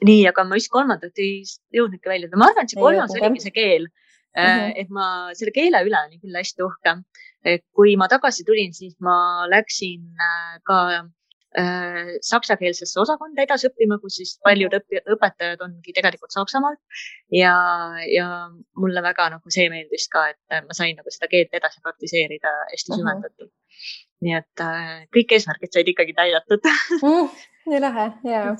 nii, aga ma just kolmandat ei jõudnudki välja. Ma arvan, et see kolmas oligi see keel, et ma selle keele üle olin küll hästi uhke. Kui ma tagasi tulin, siis ma läksin ka saksakeelsesse osakonda edasi õppima, kus siis paljud õpetajad ongi tegelikult Saksamaalt ja mulle väga nagu see meeldis ka, et ma sain nagu seda keelt edasi praktiseerida hästi süvendatud. Nii et kõik eesmärgid said ikkagi täidatud. Nii lahe, jaa.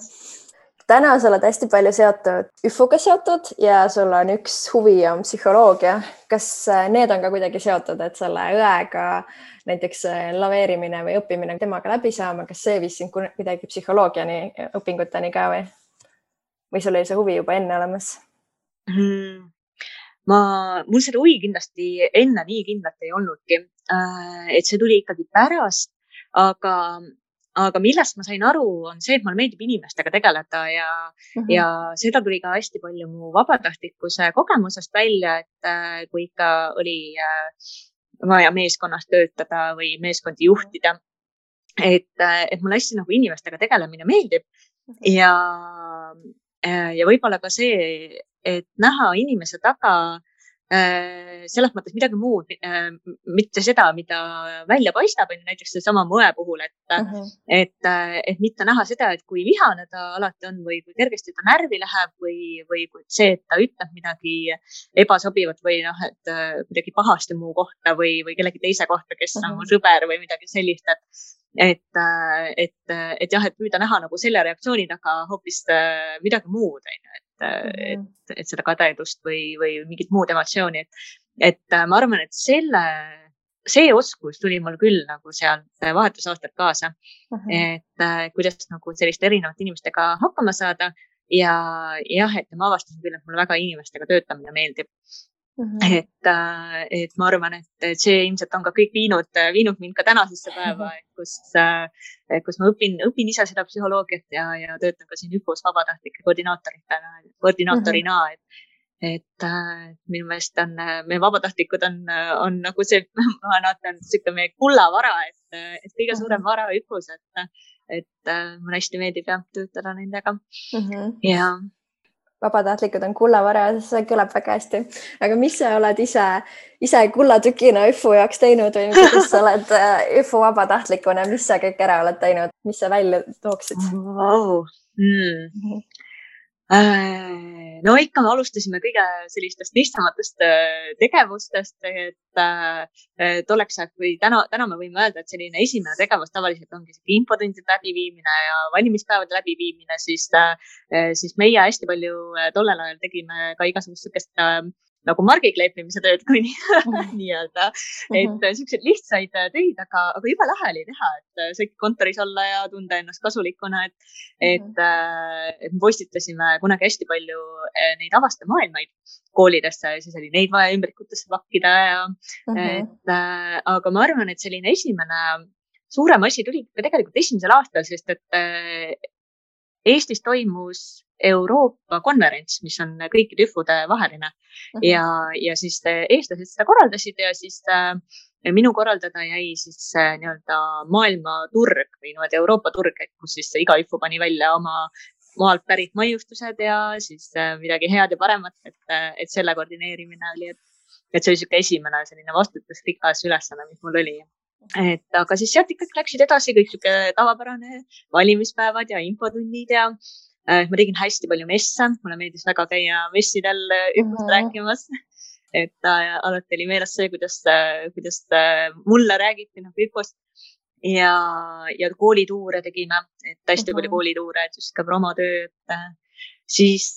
Täna sa oled hästi palju seotud ÜFO-ga seotud ja sul on üks huvi on psühholoogia. Kas need on ka kuidagi seotud, et selle õega näiteks laveerimine või õppimine temaga läbi saama, kas see viis sind kuidagi psühholoogiani õpinguteni ka või sul oli see huvi juba enne olemas? Mul seda huvi kindlasti enne nii kindlalt ei olnudki, et see tuli ikkagi pärast, aga millest ma sain aru, on see, et mulle meeldib inimestega tegeleda ja seda tuli ka hästi palju mu vabatahtlikkuse kogemusest välja, et kui ikka oli vaja meeskonnas töötada või meeskondi juhtida, et mulle hästi nagu inimestega tegelemine meeldib ja võib-olla ka see, et näha inimese taga selles mõttes midagi muud, mitte seda, mida välja paistab, näiteks see sama mõe puhul, et mitte näha seda, et kui vihane ta alati on või kui kergesti ta närvi läheb või see, et ta ütleb midagi ebasobivat või et midagi pahasti muu kohta või kellegi teise kohta, kes on mu sõber või midagi sellist, et jah, et püüda näha nagu selle reaktsiooni taga hoopis midagi muud, et seda kadedust või mingit muud emotsiooni, et ma arvan, et see oskus tuli mul küll nagu sealt vahetusaastalt kaasa, et kuidas nagu selliste erinevate inimestega hakkama saada ja jah, et ma avastasin küll, et mulle väga inimestega töötamine meeldib. Et ma arvan, et see ilmselt on ka kõik viinud mind ka tänasesse päeva, kus ma õpin ise seda psühholoogiat ja töötan ka siin ÜFO-s vabatahtlike koordinaatorina, et minu meelest meie vabatahtlikud on nagu see, ma näen siuke meie kullavara, et kõige suurem vara ÜFO-s, et mulle hästi meeldib töötada nendega. vabatahtlikud on kullavara, see kõlab väga hästi. Aga mis sa oled ise kullatükina ÜFU jaoks teinud või kuidas sa oled ÜFU vabatahtlikuna, mis sa kõik ära oled teinud, mis sa välja tooksid? Wow. No ikka me alustasime kõige sellistest lihtsamatest tegevustest, et oleks, kui täna me võime öelda, et selline esimene tegevus tavaliselt ongi infotundide läbiviimine ja valimispäevade läbiviimine, siis meie hästi palju tollel ajal tegime ka igasugust sukest nagu margikleepimise tööd, kui nii-öelda, et siukseid lihtsaid töid, aga jube lahe oli teha, et sai kontoris olla ja tunda ennast kasulikuna, et me postitasime kunagi hästi palju neid avastamaailmaid koolidesse ja siis oli neid vaja ümbrikutesse pakkida aga ma arvan, et selline esimene suurem asi tuli tegelikult esimesel aastal, sest et Eestis toimus Euroopa konverents, mis on kõikide ÜFUde vaheline ja siis eestlased seda korraldasid ja siis minu korraldada jäi siis nii-öelda maailmaturg või niimoodi Euroopa turg, kus siis iga ÜFU pani välja oma maalt pärit maiustused ja siis midagi head ja paremat, et selle koordineerimine oli, et see oli siuke esimene selline vastutusrikas ülesanne, mis mul oli. Aga siis sealt ikkagi läksid edasi kõik siuke tavapärane valimispäevad ja infotunnid ja ma tegin hästi palju messe, mulle meeldis väga käia messidel ÜFUst rääkimas, et alati oli meeles see, kuidas mulle räägiti ÜFUst ja koolituure tegime, et hästi palju koolituure, et just ka promotöö, siis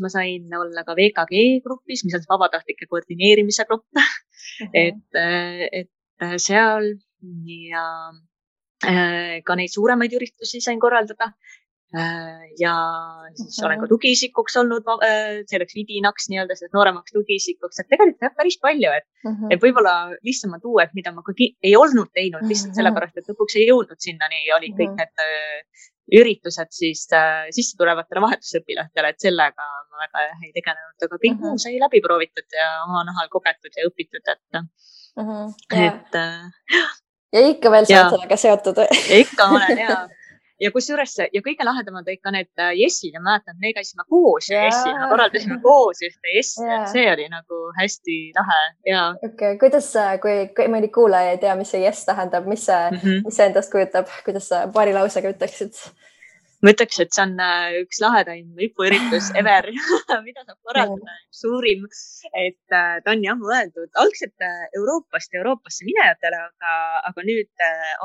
ma sain olla ka VKG grupis, mis on vabatahtlike koordineerimise grupp, et seal ja ka neid suuremaid üritusi sain korraldada ja siis olen ka tugiisikuks olnud, selleks vidinaks nii-öelda, nooremaks tugiisikuks, et tegelikult päris palju, et võib-olla lihtsamalt tuua, et mida ma ei olnud teinud lihtsalt sellepärast, et lõpuks ei jõudnud sinnani, olid kõik need üritused siis sisse tulevatele vahetusõpilastele, et sellega ma väga ei tegelenud, aga kõik muu sai läbi proovitud ja oma nahal kogetud ja õpitud, ja ikka veel sa oled sellega seotud. Ikka olen ja kusjuures ja kõige lahedamad ikka need jessid ja mäletan, me käisime koos jessina, korraldasime koos ühte jessi, et see oli nagu hästi lahe. Okay. Kuidas, kui mõni kuulaja ei tea, mis see jess tähendab, mis see endast kujutab, kuidas sa paari lausega ütleksid? Ma ütleks, et see on üks lahedaim ÜFU-üritus ever, mida saab korraldada, suurim, et ta on jah mõeldud algselt Euroopasse minejatele, aga nüüd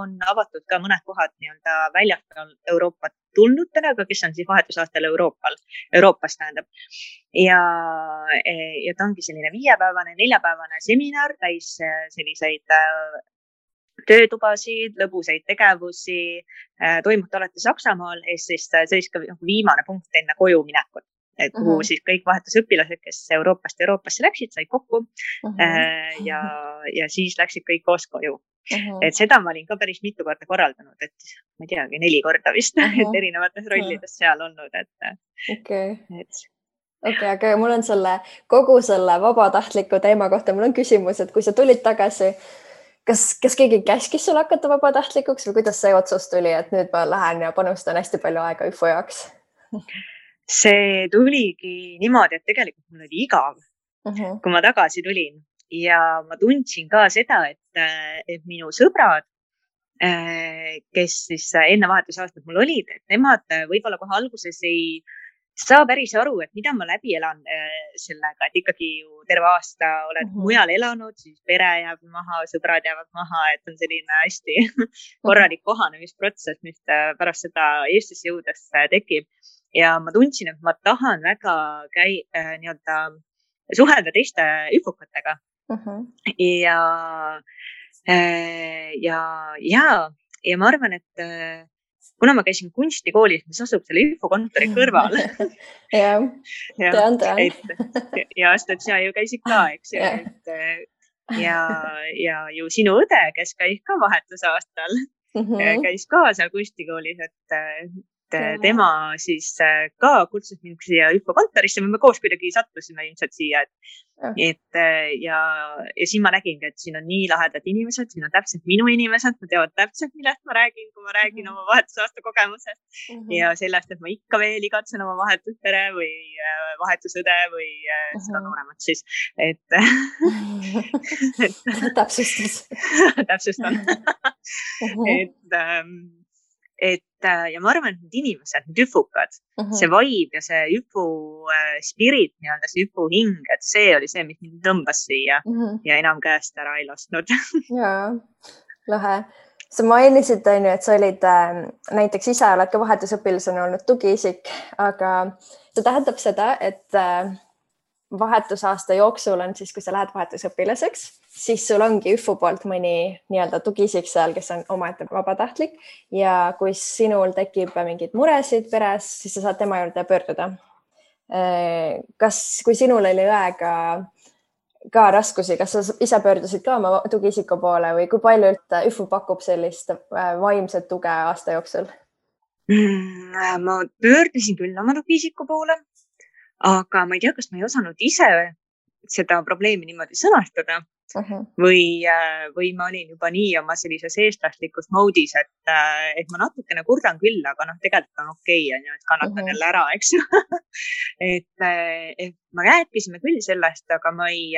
on avatud ka mõned kohad nii-öelda väljaspool Euroopat tulnutele, aga kes on siis vahetusaastal Euroopas tähendab. Ja ta ongi selline 5-päevane, 4-päevane seminar, täis selliseid töötubasid, lõbusaid tegevusi, toimub alati Saksamaal, siis see oli viimane punkt enne koju minekut, et kuhu siis kõik vahetusõpilased, kes Euroopasse läksid, said kokku ja siis läksid kõik koos koju. Et seda ma olin ka päris mitu korda korraldanud, et ma ei teagi, 4 korda vist, et erinevates rollides seal olnud. Aga mul on kogu selle vabatahtliku teema kohta, mul on küsimus, et kui sa tulid tagasi, kas keegi käskis sul hakata vabatahtlikuks või kuidas see otsus tuli, et nüüd ma lähen ja panustan hästi palju aega ÜFU jaoks? See tuligi niimoodi, et tegelikult mul oli igav, kui ma tagasi tulin ja ma tundsin ka seda, et minu sõbrad, kes siis enne vahetusaastat mul olid, et nemad võib-olla kohe alguses ei saa päris aru, et mida ma läbi elan sellega, et ikkagi ju terve aasta oled mujal elanud, siis pere jääb maha, sõbrad jäävad maha, et on selline hästi korralik kohanemisprotsess, mis pärast seda Eestisse jõudes tekib. Ja ma tundsin, et ma tahan väga nii-öelda suhelda teiste ÜFUkatega. Ja ma arvan, et kuna ma käisin kunstikoolis, mis asub selle ÜFU kontori kõrval. tean. Ja sina ju käisid ka, eks ju. Ja ju sinu õde, kes käis ka vahetusaastal, käis ka seal kunstikoolis, et tema siis ka kutsus mind siia ÜFO kontorisse, me koos kuidagi sattusime ilmselt siia, ja siin ma nägingi, et siin on nii lahedad inimesed, siin on täpselt minu inimesed, nad teavad täpselt, millest ma räägin, kui ma räägin oma vahetusaasta kogemusest ja sellest, et ma ikka veel igatsen oma vahetuspere või vahetusõde või seda nooremat siis, täpsustan. Ja ma arvan, et need inimesed, need üfukad, see vibe ja see üfu spirit, nii-öelda see üfu hing, et see oli see, mis mind tõmbas siia ja enam käest ära ei lasknud. Jaa, lahe. Sa mainisid, et sa olid näiteks ise oled ka vahetusõpilasena olnud tugiisik, aga see tähendab seda, et vahetusaasta jooksul on siis, kui sa lähed vahetusõpilaseks, siis sul ongi ÜFO poolt mõni nii-öelda tugiisik seal, kes on omaette vabatahtlik ja kui sinul tekib mingeid muresid peres, siis sa saad tema juurde pöörduda. Kui sinul oli õega ka raskusi, kas sa ise pöördusid ka oma tugiisiku poole või kui palju ÜFO pakub sellist vaimset tuge aasta jooksul? Ma pöördusin küll oma tugiisiku poole, aga ma ei tea, kas ma ei osanud ise seda probleemi niimoodi sõnastada või ma olin juba nii oma sellises eestlaslikus moodis, et ma natukene kurdan küll, aga tegelikult on okei, et kannatan jälle ära, eks ju. et ma rääkisime küll sellest, aga ma ei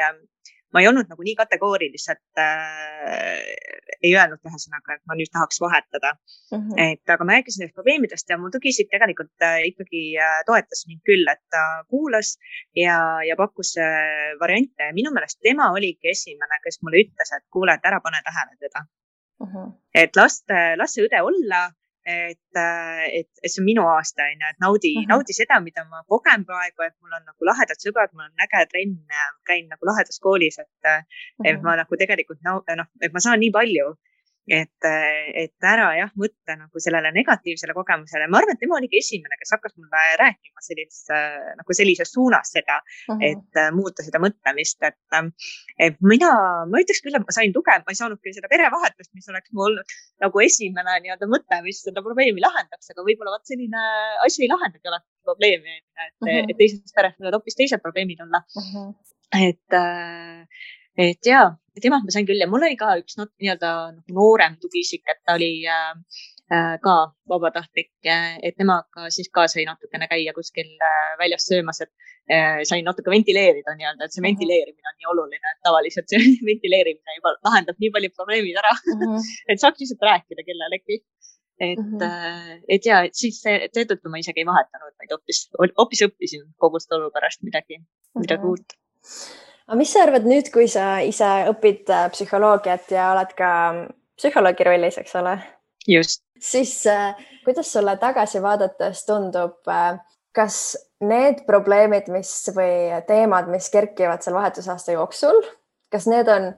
olnud nagu nii kategooriliselt, ei öelnud ühesõnaga, et ma nüüd tahaks vahetada. Aga ma rääkisin nendest probleemidest ja mu tugiisik tegelikult ikkagi toetas mind küll, et ta kuulas ja pakkus variante. Minu meelest tema oligi esimene, kes mulle ütles, et kuule, et ära pane tähele teda. Et las see õde olla, et see on minu aasta, et naudi seda, mida ma kogen praegu, et mul on nagu lahedad sõbrad, mul on äge trenn, käin nagu lahedas koolis, et ma nagu tegelikult, et ma saan nii palju, et ära mõtle nagu sellele negatiivsele kogemusele. Ma arvan, et tema oligi esimene, kes hakkas mulle rääkima sellises suunas seda, et muuta seda mõtlemist, et ma ütleks küll, et ma sain tuge, ma ei saanud küll seda perevahetust, mis oleks mul olnud nagu esimene nii-öelda mõte, mis seda probleemi lahendaks, aga võib-olla selline asi ei lahendagi alati probleemi, et teises peres võivad hoopis teised probleemid olla. Et jaa, temalt ma sain küll ja mul oli ka üks nii-öelda noorem tugiisik, et ta oli ka vabatahtlik, et temaga siis ka sai natukene käia kuskil väljas söömas, et sain natuke ventileerida nii-öelda, et see ventileerimine on nii oluline, et tavaliselt see ventileerimine juba lahendab nii palju probleemid ära, et saaks lihtsalt rääkida kellelegi. Et jaa, et siis seetõttu ma isegi ei vahetanud, vaid hoopis õppisin kogu seda olukorrast midagi uut. Aga mis sa arvad nüüd, kui sa ise õpid psühholoogiat ja oled ka psühholoogi rollis, eks ole? Just. Siis kuidas sulle tagasi vaadates tundub, kas need probleemid või teemad, mis kerkivad seal vahetusaasta jooksul, kas need on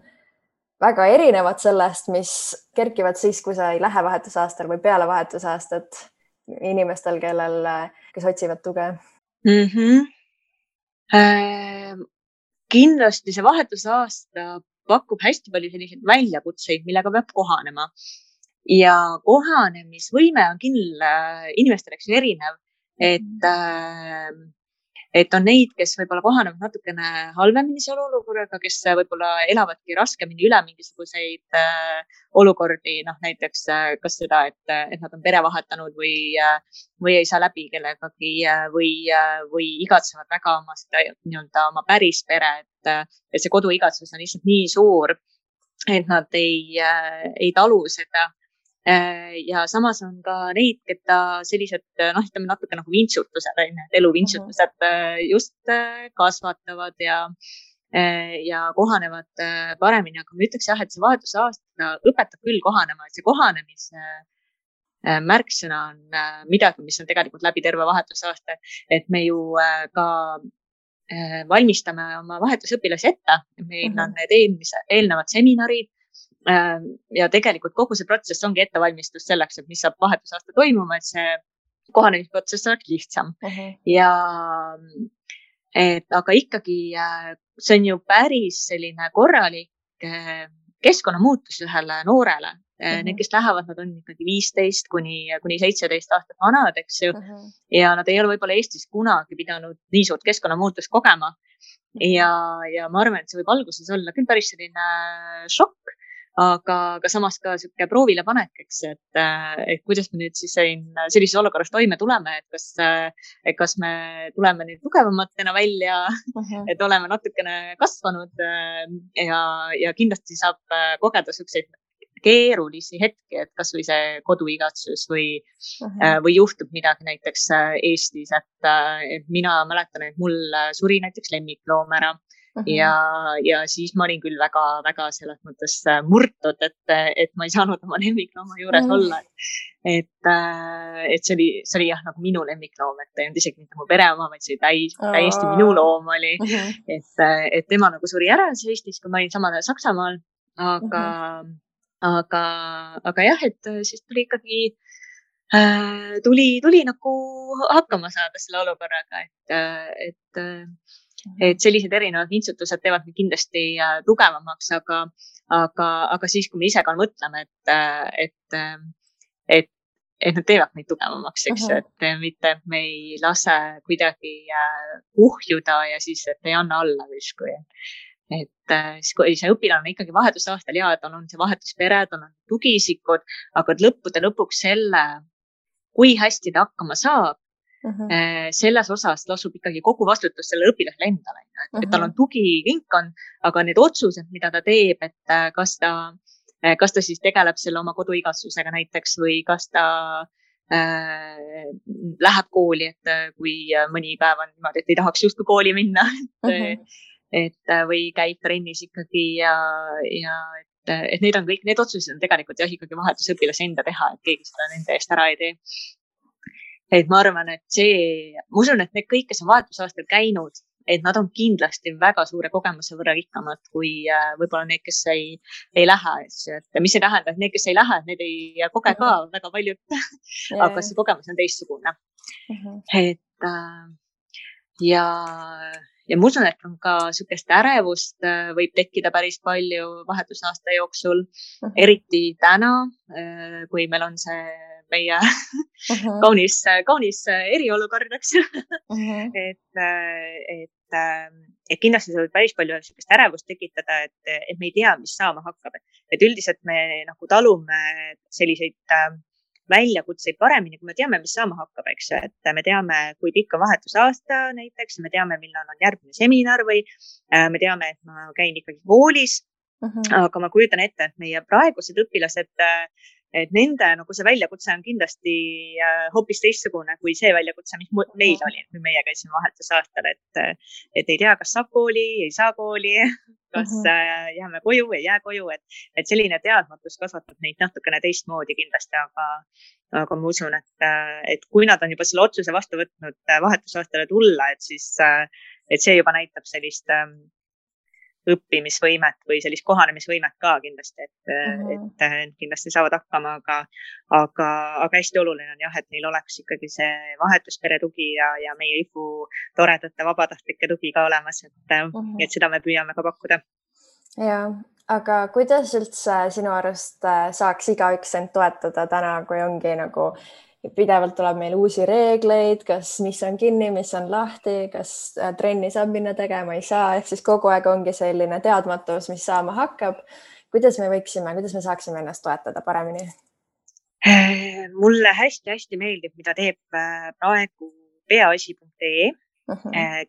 väga erinevad sellest, mis kerkivad siis, kui sa ei lähe vahetusaastal või peale vahetusaastat inimestel, kes otsivad tuge? Kindlasti see vahetusaasta pakub hästi palju selliseid väljakutseid, millega peab kohanema. Ja kohanemisvõime on küll inimestel erinev, et on neid, kes võib-olla kohanevad natukene halvemini selle olukorraga, kes võib-olla elavadki raskemini üle mingisuguseid olukordi, näiteks kas seda, et nad on pere vahetanud või ei saa läbi kellegagi või igatsevad väga oma seda nii-öelda oma päris pere, et see koduigatsus on lihtsalt nii suur, et nad ei talu seda. Ja samas on ka neid, keda sellised, ütleme natuke nagu vintsutused, eluvintsutused just kasvatavad ja kohanevad paremini. Aga ma ütleks et see vahetusaasta õpetab küll kohanema, et see kohanemise märksõna on midagi, mis on tegelikult läbi terve vahetusaasta, et me ju ka valmistame oma vahetusõpilasi ette. Meil on need eelnevad seminarid, ja tegelikult kogu see protsess ongi ettevalmistus selleks, et mis saab vahetusaasta toimuma, et see kohanemisprotsess oleks lihtsam. Aga ikkagi see on ju päris selline korralik keskkonnamuutus ühele noorele, Need, kes lähevad, nad on ikkagi 15 kuni 17 aastat vanad, eks ju. Ja nad ei ole võib-olla Eestis kunagi pidanud nii suurt keskkonnamuutust kogema. Ja ma arvan, et see võib alguses olla küll päris selline šokk, aga samas ka sihuke proovile panek, eks, et kuidas me nüüd siis sellises olukorras toime tuleme, et kas me tuleme nüüd tugevamatena välja, et oleme natukene kasvanud ja kindlasti saab kogeda siukseid keerulisi hetki, et kasvõi see koduigatsus või juhtub midagi näiteks Eestis, et mina mäletan, et mul suri näiteks lemmikloom ära. Ja siis ma olin küll väga selles mõttes murtud, et ma ei saanud oma lemmiklooma juures olla. Et see oli jah, nagu minu lemmikloom, et ei olnud isegi mitte mu pere oma, vaid see täiesti minu loom oli. Et tema nagu suri ära Eestis, kui ma olin samal ajal Saksamaal. Aga jah, et siis tuli ikkagi tuli nagu hakkama saada selle olukorraga, et sellised erinevad vintsutused teevad mind kindlasti tugevamaks, aga siis, kui me ise ka mõtleme, et nad teevad meid tugevamaks, eks, et mitte me ei lase kuidagi kuhjuda ja siis, et ei anna alla justkui. Et siis, kui see õpilane on ikkagi vahetusaastal ja tal on see vahetuspere, tal on tugisikud, aga lõppude lõpuks selle, kui hästi ta hakkama saab, selles osas lasub ikkagi kogu vastutus selle õpilasele endale, et tal on tugiringkond, aga need otsused, mida ta teeb, et kas ta siis tegeleb selle oma koduigatsusega näiteks või kas ta läheb kooli, et kui mõni päev on niimoodi, et ei tahaks justkui kooli minna, või käib trennis ikkagi et need on kõik, need otsused on tegelikult jah, ikkagi vahetusõpilase enda teha, et keegi seda nende eest ära ei tee. Et ma arvan, et ma usun, et need kõik, kes on vahetusaastal käinud, et nad on kindlasti väga suure kogemuse võrra rikkamad kui võib-olla need, kes ei lähe. Et mis ei tähenda, et need, kes ei lähe, need ei koge ka väga paljud, aga see kogemus on teistsugune. Et ja ma usun, et on ka sükest ärevust võib tekkida päris palju vahetusaasta jooksul, eriti täna, kui meil on see meie kaunis eriolukord, eks. Et kindlasti see võib päris palju sükest ärevust tekitada, et me ei tea, mis saama hakkab. Et üldiselt me nagu talume selliseid väljakutseid paremini, kui me teame, mis saama hakkab, eks, et me teame, kui pikk on vahetusaasta näiteks, me teame, millal on järgmine seminar või me teame, et ma käin ikkagi koolis, aga ma kujutan ette, et meie praegused õpilased, et nende nagu see väljakutse on kindlasti hoopis teistsugune kui see väljakutse, mis meil oli, kui meie käisime vahetusaastal, et ei tea, kas saab kooli, ei saa kooli, kas jääme koju, ei jää koju, et selline teadmatus kasvatab neid natukene teistmoodi kindlasti, aga ma usun, et kui nad on juba selle otsuse vastu võtnud vahetusaastale tulla, et siis et see juba näitab sellist õppimisvõimet või sellist kohanemisvõimet ka kindlasti, et kindlasti saavad hakkama, aga hästi oluline on jah, et neil oleks ikkagi see vahetuspere tugi ja meie IFU toredate vabatahtlike tugi ka olemas, et seda me püüame ka pakkuda. Ja, aga kuidas üldse sinu arust saaks igaüks end toetada täna, kui ongi nagu pidevalt tuleb meil uusi reegleid, mis on kinni, mis on lahti, kas trenni saab minna tegema, ei saa, ehk siis kogu aeg ongi selline teadmatus, mis saama hakkab. Kuidas me saaksime ennast toetada paremini? Mulle hästi meeldib, mida teeb praegu peaasi.ee,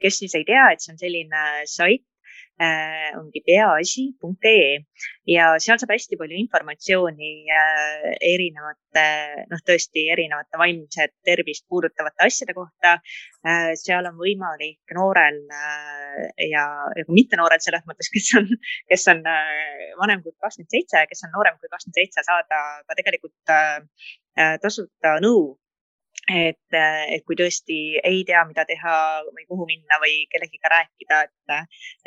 kes siis ei tea, et see on selline sait, ongi peaasi.ee ja seal saab hästi palju informatsiooni tõesti erinevate vaimset tervist puudutavate asjade kohta. Seal on võimalik noorel ja mitte noorel selles mõttes, kes on vanem kui 27, kes on noorem kui 27, saada ka tegelikult tasuta nõu. Et kui tõesti ei tea, mida teha või kuhu minna või kellegiga rääkida,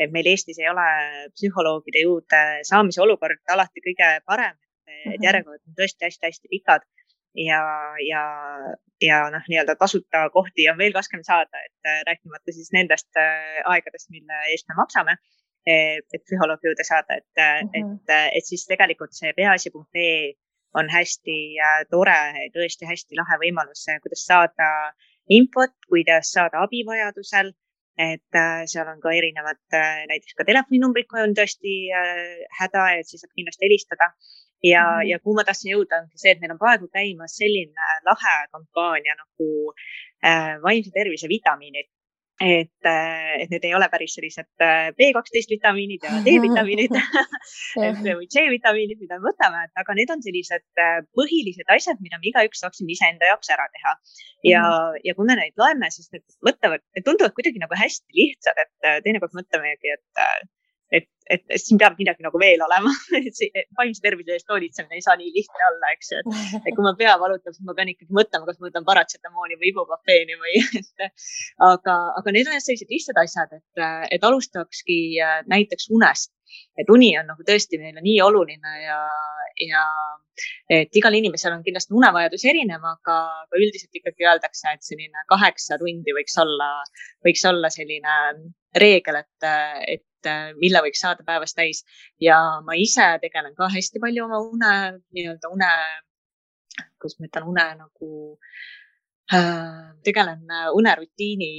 et meil Eestis ei ole psühholoogide juurde saamise olukord alati kõige parem, et järjekorrad on tõesti hästi pikad ja nii-öelda tasuta kohti on veel raskem saada, et rääkimata siis nendest aegadest, mille eest me maksame, et psühholoogi juurde saada, et siis tegelikult see peaasi.ee on hästi tore, tõesti hästi lahe võimalus, kuidas saada infot, kuidas saada abi vajadusel. Et seal on ka erinevad näiteks ka telefoninumbrid, kui on tõesti häda, et siis saab kindlasti helistada. Ja kuhu ma tahtsin jõuda, on see, et meil on praegu käimas selline lahe kampaania nagu vaimse tervise vitamiinid. Et need ei ole päris sellised B12 vitamiinid ja D-vitamiinid või C-vitamiinid, mida me võtame, aga need on sellised põhilised asjad, mida me igaüks saaksime iseenda jaoks ära teha. Ja kui me neid loeme, siis need tunduvad kuidagi nagu hästi lihtsad, et teinekord mõtlemegi, et siin peab midagi nagu veel olema. Vaimse tervise eest hoolitsemine ei saa nii lihtne olla, eks ju. Et kui ma pea valutab, siis ma pean ikkagi mõtlema, kas ma võtan paratsetamooni või ibuprofeeni või. Aga need on sellised lihtsad asjad, et alustakski näiteks unest. Et uni on nagu tõesti meile nii oluline ja et igal inimesel on kindlasti unevajadus erinev, aga üldiselt ikkagi öeldakse, et selline 8 tundi võiks olla selline reegel, et mille võiks saada päevas täis. Ja ma ise tegelen ka hästi palju oma kuidas ma ütlen, tegelen unerutiini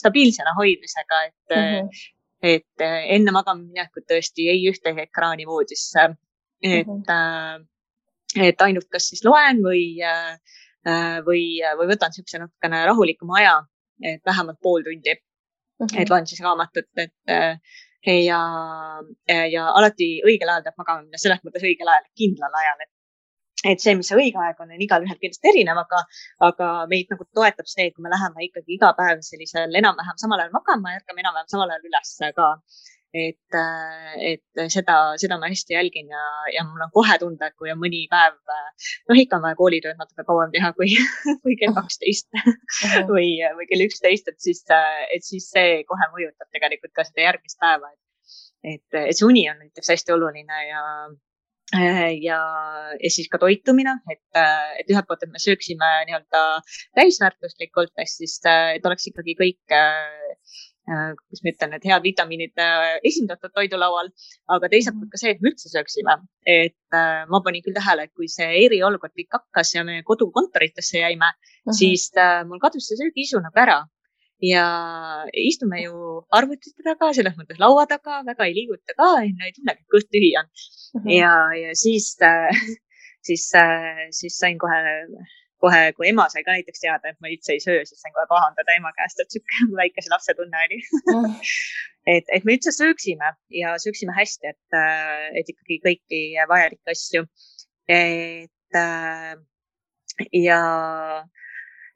stabiilsena hoidmisega, et enne magama minekut tõesti ei ühtegi ekraani voodisse, et ainult kas siis loen või võtan siukse natukene rahulikuma aja, et vähemalt pool tundi. Et loen siis raamatut, ja alati õigel ajal peab magama minna, selles mõttes õigel ajal, kindlal ajal, et see, mis see õige aeg on igal ühel kindlasti erinev, aga meid nagu toetab see, et kui me läheme ikkagi iga päev sellisel enam-vähem samal ajal magama ja ärkame enam-vähem samal ajal üles ka. Et seda ma hästi jälgin ja mul on kohe tunda, et kui on mõni päev, ikka on vaja koolitööd natuke kauem teha kui kell 12 või kell 11, et siis see kohe mõjutab tegelikult ka seda järgmist päeva. Et see uni on näiteks hästi oluline ja siis ka toitumine, et ühelt poolt, et me sööksime nii-öelda täisväärtuslikult, siis et oleks ikkagi kõik kus ma ütlen, et head vitamiinid esindatud toidulaual, aga teiselt poolt ka see, et me üldse sööksime. Et ma panin küll tähele, et kui see eriolukord kõik hakkas ja me kodukontoritesse jäime, siis mul kadus see söögiisu nagu ära. Ja istume ju arvutite taga, selles mõttes laua taga, väga ei liiguta ka, ei tunnegi, kõht tühi on. Ja siis sain kohe, kui ema sai ka näiteks teada, et ma üldse ei söö, siis sain kohe pahandada ema käest, et siuke väikese lapse tunne oli. et me üldse sööksime ja sööksime hästi, et ikkagi kõiki vajalikke asju.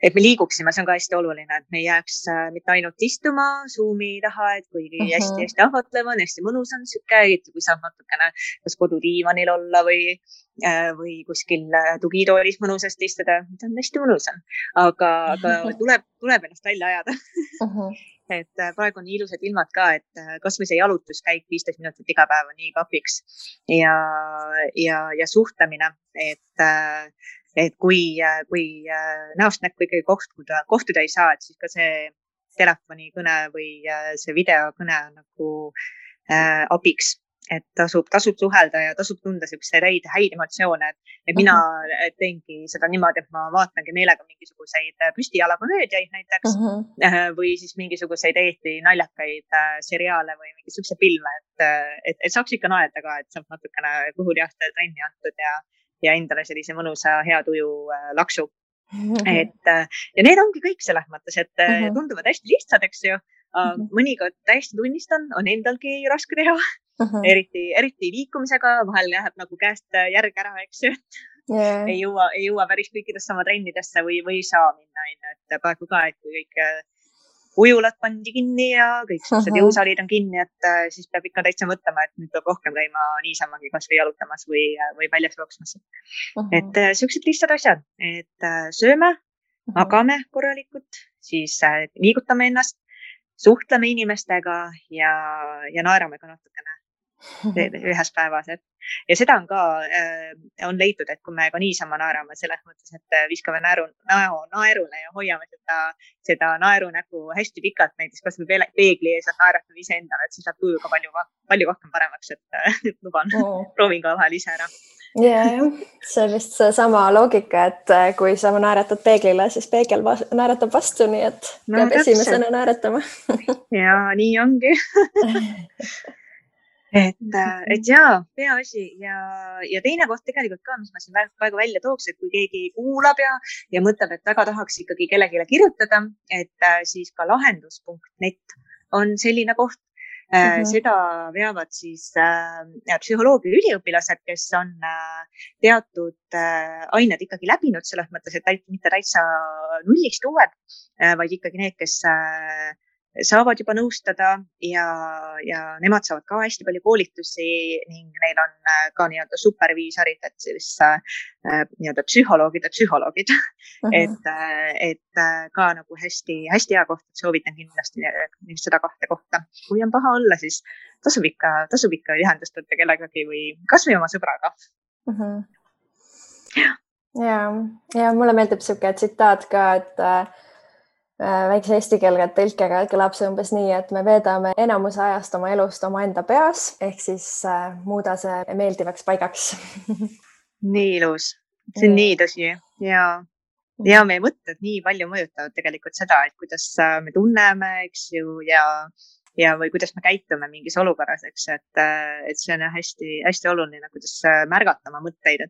Et me liiguksime, see on ka hästi oluline, et me ei jääks mitte ainult istuma Zoomi taha, et kuigi hästi ahvatlev on, hästi mõnus on siuke, kui saab natukene kas kodudiivanil olla või kuskil tugitoolis mõnusasti istuda, see on hästi mõnus on, aga tuleb ennast välja ajada. Et praegu on nii ilusad ilmad ka, et kas või see jalutuskäik 15 minutit iga päev on nii kapiks ja suhtlemine, et kui näost näkku ikkagi kohtuda ei saa, et siis ka see telefonikõne või see videokõne on nagu abiks, et tasub suhelda ja tasub tunda siukseid häid emotsioone, et mina teengi seda niimoodi, et ma vaatangi meelega mingisuguseid püstijalakomöödiaid näiteks või siis mingisuguseid Eesti naljakaid seriaale või mingisuguse filme, et saaks ikka naerda ka, et saab natukene kõhulihastel trenni antud ja endale sellise mõnusa hea tuju laksu. Ja need ongi kõik selles mõttes, et tunduvad hästi lihtsad, eks ju. Mõnikord täiesti tunnistan, on endalgi raske teha, eriti liikumisega, vahel läheb nagu käest järg ära, eks ju. Ei jõua päris kõikidesse oma trennidesse või ei saa minna, et praegu ka, et kui kõik ujulad pandi kinni ja kõik sellised jõusalid on kinni, et siis peab ikka täitsa mõtlema, et nüüd peab rohkem käima niisamagi kas või jalutamas või väljas jooksmas. Et siuksed lihtsad asjad, et sööme, magame korralikult, siis liigutame ennast, suhtleme inimestega ja naerame ka natukene. ühes päevas, ja seda on ka, on leitud, et kui me ka niisama naerame selles mõttes, et viskame näo naerule ja hoiame seda naerunägu hästi pikalt, näiteks kas või peegli ees, et naeratame iseendale, et siis läheb tuju ka palju rohkem paremaks, et luban, proovin ka vahel ise ära. jah, see on vist seesama loogika, et kui sa naeratad peeglile, siis peegel naeratab vastu, nii et peab esimesena naeratama. ja nii ongi. et jaa, peaasi ja teine koht tegelikult ka, mis ma siin praegu välja tooks, et kui keegi kuulab ja mõtleb, et väga tahaks ikkagi kellelegi kirjutada, et siis ka lahendus.net on selline koht. Seda veavad siis psühholoogia üliõpilased, kes on teatud ained ikkagi läbinud selles mõttes, et mitte täitsa nullist uued, vaid ikkagi need, kes saavad juba nõustada ja nemad saavad ka hästi palju koolitusi ning neil on ka nii-öelda superviisorid, et siis nii-öelda psühholoogid, et ka nagu hästi hea koht, et soovitan kindlasti seda kahte kohta. Kui on paha olla, siis tasub ikka ühendust võtta kellegagi või kasvõi oma sõbraga. Ja mulle meeldib siuke tsitaat ka, et väikse eesti keelega tõlkega kõlab see umbes nii, et me veedame enamuse ajast oma elust omaenda peas, ehk siis muuda see meeldivaks paigaks. Nii ilus, see on nii tõsi ja meie mõtted nii palju mõjutavad tegelikult seda, et kuidas me tunneme, eks ju, ja või kuidas me käitume mingis olukorras, eks, et see on hästi oluline, kuidas märgata oma mõtteid,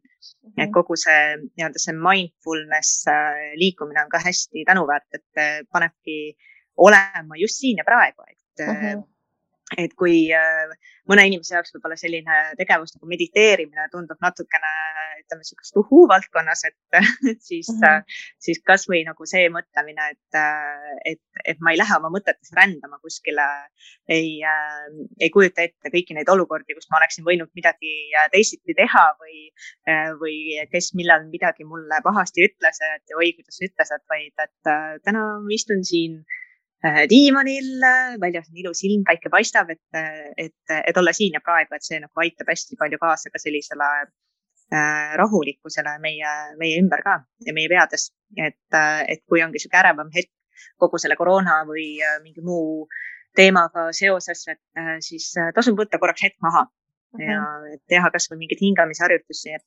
et kogu see nii-öelda see mindfulness liikumine on ka hästi tänuväärt, et panebki olema just siin ja praegu, et kui mõne inimese jaoks võib-olla selline tegevus nagu mediteerimine tundub natukene, ütleme, sellist valdkonnas, et siis kasvõi nagu see mõtlemine, et ma ei lähe oma mõtetes rändama kuskile, ei kujuta ette kõiki neid olukordi, kus ma oleksin võinud midagi teisiti teha või kes millal midagi mulle pahasti ütles, et oi, kuidas ütles, vaid et täna istun siin diivanil, väljas on ilus ilm, päike paistab, et olla siin ja praegu, et see nagu aitab hästi palju kaasa ka sellisele rahulikkusele meie ümber ka ja meie peades, et kui ongi siuke ärevam hetk kogu selle koroona või mingi muu teemaga seoses, et siis tasub võtta korraks hetk maha ja teha kasvõi mingeid hingamisharjutusi,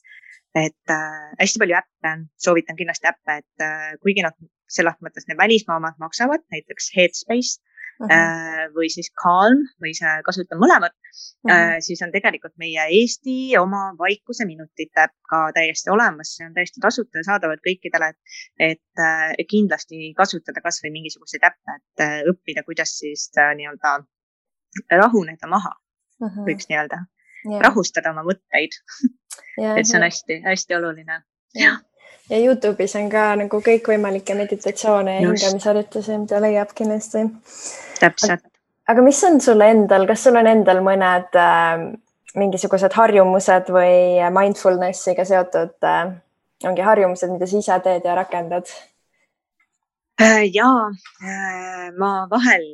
et hästi palju äppe, soovitan kindlasti äppe, et kuigi nad selles mõttes need välismaa omad maksavad, näiteks Headspace või siis Calm või see kasutan mõlemat, siis on tegelikult meie Eesti oma vaikuse minutite ka täiesti olemas, see on täiesti tasuta ja saadavad kõikidele, et kindlasti kasutada kasvõi mingisuguseid äppe, et õppida, kuidas siis nii-öelda rahuneda maha, võiks nii-öelda rahustada oma mõtteid, et see on hästi oluline. Ja YouTube'is on ka nagu kõikvõimalikke meditatsioone ja hingamisharjutusi, mida leiab kindlasti. Täpselt. Aga mis on sulle endal, kas sul on endal mõned mingisugused harjumused või mindfulnessiga seotud ongi harjumused, mida sa ise teed ja rakendad? Ma vahel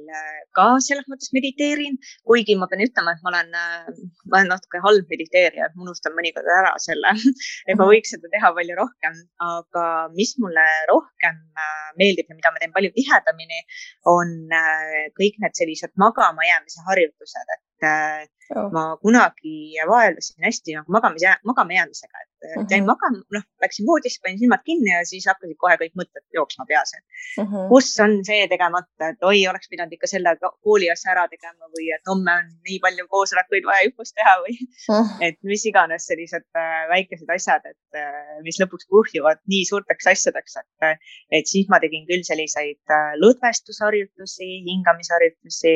ka selles mõttes mediteerin, kuigi ma pean ütlema, et ma olen natuke halb mediteerija, et ma unustan mõnikord ära selle, et ma võiks seda teha palju rohkem, aga mis mulle rohkem meeldib ja mida ma teen palju tihedamini, on kõik need sellised magama jäämise harjutused, et ma kunagi vaevlesin hästi nagu magama jäämisega, et jäin magama, läksin voodisse, panin silmad kinni ja siis hakkasid kohe kõik mõtted jooksma peas. Kus on see tegemata, et oi, oleks pidanud ikka selle kooli asja ära tegema või et homme on nii palju koosolekuid vaja õppust teha või et mis iganes sellised väikesed asjad, et mis lõpuks kuhjuvad nii suurteks asjadeks, et siis ma tegin küll selliseid lõdvestusharjutusi, hingamisharjutusi,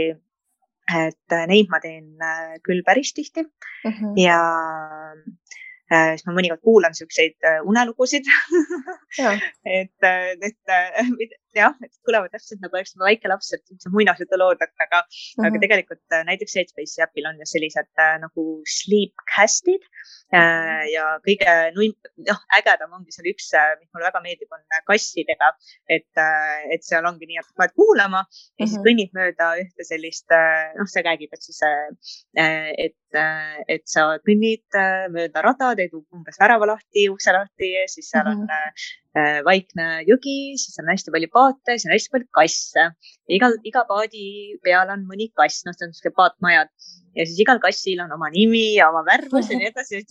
et neid ma teen küll päris tihti ja siis ma mõnikord kuulan siukseid unelugusid, et jah, et kõlavad täpselt nagu oleks väike laps, et see muinasjutulood, aga tegelikult näiteks Headspace'i äpil on ju sellised nagu sleepcast'id ja kõige ägedam ongi seal üks, mis mulle väga meeldib, on kassidega, et seal ongi nii, et paned kuulama ja siis kõnnid mööda ühte sellist, see räägib, et siis, et sa kõnnid mööda rada, teed umbes värava lahti, ukse lahti, siis seal on vaikne jõgi, siis on hästi palju paate, siis on hästi palju kasse. Iga paadi peal on mõni kass, see on sellised paatmajad ja siis igal kassil on oma nimi ja oma värvus ja nii edasi.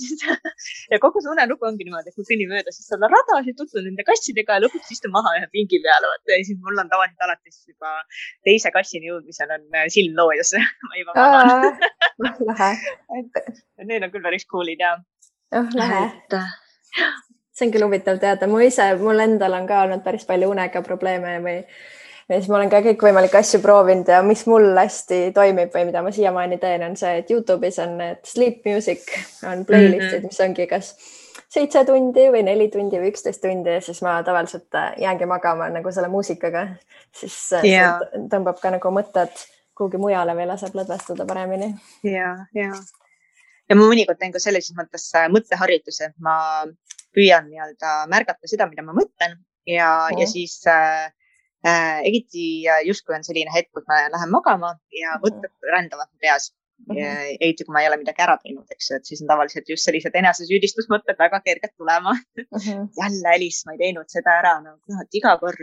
Ja kogu see unelugu ongi niimoodi, et kui kõnni mööda, siis saad rada, siis tutvud nende kassidega ja lõpuks istun maha ühe pingi peale. Ja siis mul on tavaliselt alati juba teise kassini jõudmisel on silm loojas. Ma juba magan. Need on küll päris coolid ja. Lähe. See on küll huvitav teada. Mul endal on ka olnud päris palju unega probleeme ja siis ma olen ka kõikvõimalikke asju proovinud ja mis mul hästi toimib või mida ma siiamaani teen, on see, et YouTube'is on need sleep music, on playlistid, mis ongi kas 7 tundi või 4 tundi või 11 tundi ja siis ma tavaliselt jäängi magama nagu selle muusikaga, siis see tõmbab ka nagu mõtted kuhugi mujale või laseb lõdvestuda paremini. Ja ma mõnikord teen ka sellises mõttes mõtteharjutuse, ma püüan nii-öelda märgata seda, mida ma mõtlen ja siis eriti justkui on selline hetk, kus ma lähen magama ja mõtted rändavad peas. Eriti kui ma ei ole midagi ära teinud, eks ju, et siis on tavaliselt just sellised enesesüüdistusmõtted väga kerged tulema. Jälle Elis, ma ei teinud seda ära, iga kord.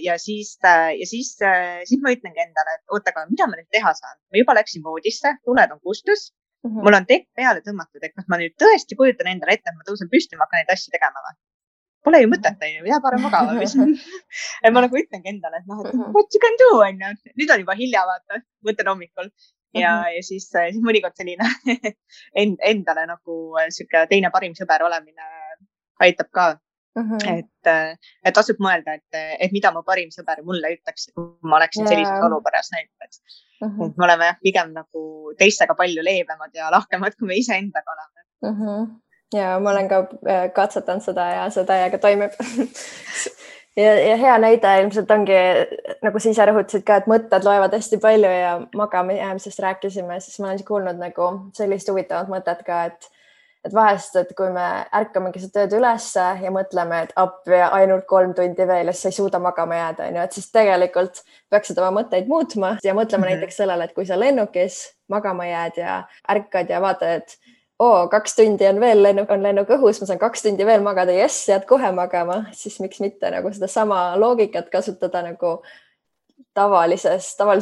Ja siis ma ütlengi endale, et oota, aga mida ma nüüd teha saan? Ma juba läksin voodisse, tuled on kustus, mul on tekk peale tõmmatud, et kas ma nüüd tõesti kujutan endale ette, et ma tõusen püsti ja ma hakkan neid asju tegema või? Pole ju mõtet, jää parem magama. Ma nagu ütlengi endale, et what you can do, nüüd on juba hilja, vaata, mõtlen hommikul. Ja siis mõnikord selline endale nagu siuke teine parim sõber olemine aitab ka. Et tasub mõelda, et mida mu parim sõber mulle ütleks, kui ma oleksin sellises olukorras näiteks. Me oleme pigem nagu teistega palju leebemad ja lahkemad, kui me ise endaga oleme. Ja ma olen ka katsetanud seda ja see täiega toimib. ja hea näide ilmselt ongi, nagu sa ise rõhutasid ka, et mõtted loevad hästi palju ja magama jäämisest rääkisime, siis ma olen kuulnud nagu sellist huvitavat mõtet ka, et vahest, et kui me ärkamegi seda tööd ülesse ja mõtleme, et appi ainult 3 tundi veel ja siis sa ei suuda magama jääda, et siis tegelikult peaksid oma mõtteid muutma ja mõtlema näiteks sellele, et kui sa lennukis magama jääd ja ärkad ja vaatad, et 2 tundi on veel lennuk õhus, ma saan 2 tundi veel magada, jääd kohe magama, siis miks mitte nagu seda sama loogikat kasutada nagu tavalise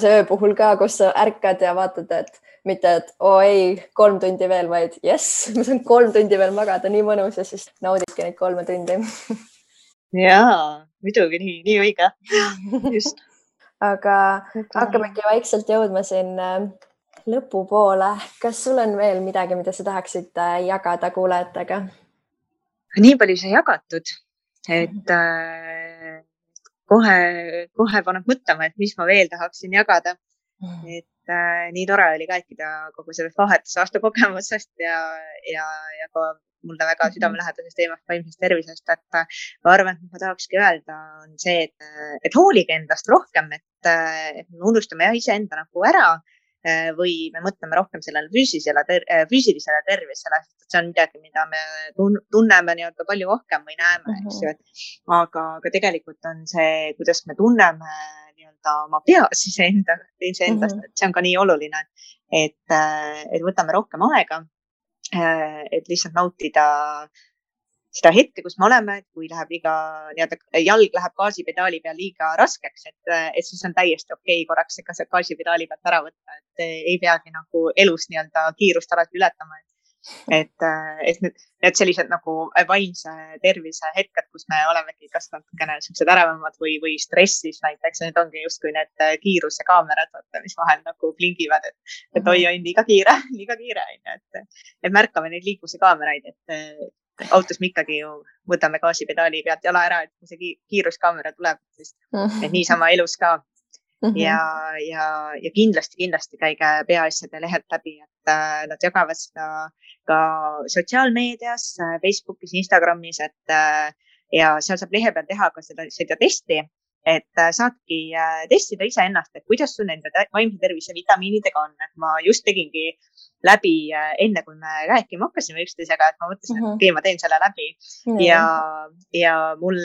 öö puhul ka, kus sa ärkad ja vaatad, et mitte, et 3 tundi veel, vaid ma saan 3 tundi veel magada, nii mõnus ja siis naudidki neid 3 tundi. Jaa, muidugi nii õige. Just. Aga hakkamegi vaikselt jõudma siin lõpupoole. Kas sul on veel midagi, mida sa tahaksid jagada kuulajatega? Nii palju sai jagatud, et kohe paneb mõtlema, et mis ma veel tahaksin jagada. Et nii tore oli rääkida kogu sellest vahetusaasta kogemusest ja ka mulle väga südamelähedasest teemast vaimsest tervisest, et ma arvan, et ma tahakski öelda on see, et hoolige endast rohkem, et me unustame iseenda nagu ära või me mõtleme rohkem sellele füüsilisele tervisele, sest see on midagi, mida me tunneme nii-öelda palju rohkem või näeme, eks ju. Aga tegelikult on see, kuidas me tunneme nii-öelda oma peas iseendast, et see on ka nii oluline, et võtame rohkem aega, et lihtsalt nautida seda hetke, kus me oleme, et kui läheb jalg läheb gaasipedaali peal liiga raskeks, et siis on täiesti okei korraks see gaasipedaali pealt ära võtta, et ei peagi nagu elus nii-öelda kiirust alati ületama. Et sellised nagu vaimse tervise hetked, kus me olemegi kas natukene sellised äravamad või stressis näiteks, need ongi justkui need kiiruse kaamerad, mis vahel nagu blingivad, et oi, liiga kiire, et märkame neid liikluse kaameraid, et autos me ikkagi ju võtame gaasipedaali pealt jala ära, et kui see kiiruskaamera tuleb, siis et niisama elus ka. Ja kindlasti käige peaasjade lehelt läbi, et nad jagavad seda ka sotsiaalmeedias, Facebookis, Instagramis, et ja seal saab lehe peal teha ka seda testi, et saadki testida iseennast, et kuidas sul nende vaimse tervise vitamiinidega on. Et ma just tegingi läbi enne, kui me rääkima hakkasime üksteisega, et ma mõtlesin, et okei, ma teen selle läbi. Ja mul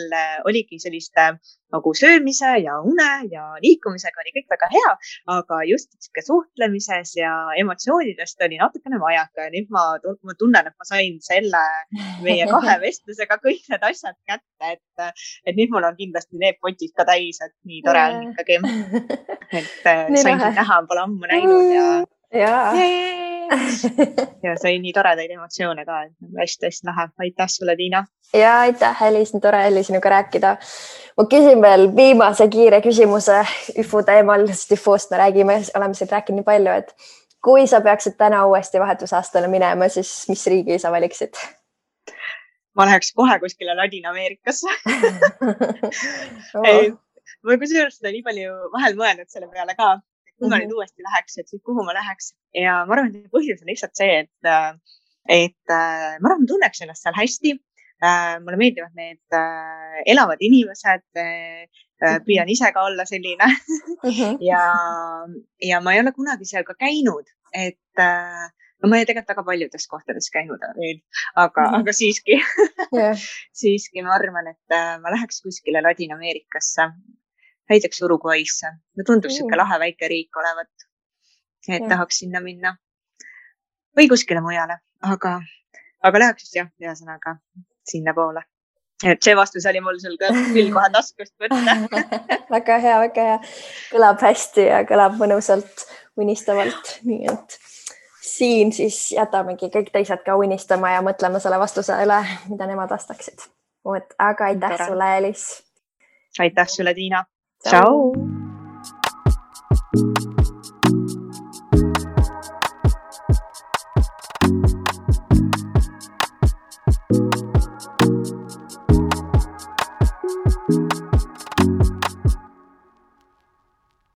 oligi selliste nagu söömise ja une ja liikumisega oli kõik väga hea, aga just suhtlemises ja emotsioonidest oli natukene vajaka. Ja nüüd ma tunnen, et ma sain selle meie 2 vestlusega kõik need asjad kätte, et nüüd mul on kindlasti need potid ka täis, et nii tore on ikkagi. Et sain sind näha, pole ammu näinud ja sai nii toredaid emotsioone ka, et hästi-hästi lahe. Aitäh sulle, Tiina. Ja aitäh, Elis, nii tore oli sinuga rääkida. Ma küsin veel viimase kiire küsimuse IFU teemal, sest IFU-st me räägime, oleme siin rääkinud nii palju, et kui sa peaksid täna uuesti vahetusaastale minema, siis mis riigi sa valiksid? Ma läheks kohe kuskile Ladina-Ameerikasse. Ma kusjuures seda nii palju vahel mõelnud selle peale ka. Kui ma nüüd uuesti läheks, et siis kuhu ma läheks. Ja ma arvan, et põhjus on lihtsalt see, et ma arvan, tunneks ennast seal hästi. Mulle meeldivad need elavad inimesed, püüan ise ka olla selline. Ja ma ei ole kunagi seal ka käinud, et ma ei tegelikult väga paljudes kohtades käinud veel, aga siiski, siiski ma arvan, et ma läheks kuskile Ladina-Ameerikasse. Näiteks Uruguaysse. Me tundub siuke lahe väike riik olevat, et tahaks sinna minna. Või kuskile mujale, aga läheks siis ühesõnaga sinna poole. Et see vastus oli mul sul küll kohe taskust võtta. Väga hea, väga hea. Kõlab hästi ja kõlab mõnusalt, unistavalt. Nii et siin siis jätamegi kõik teised ka unistama ja mõtlema selle vastuse üle, mida nemad vastaksid. Aga aitäh sulle, Elis. Aitäh sulle, Tiina. Ciao.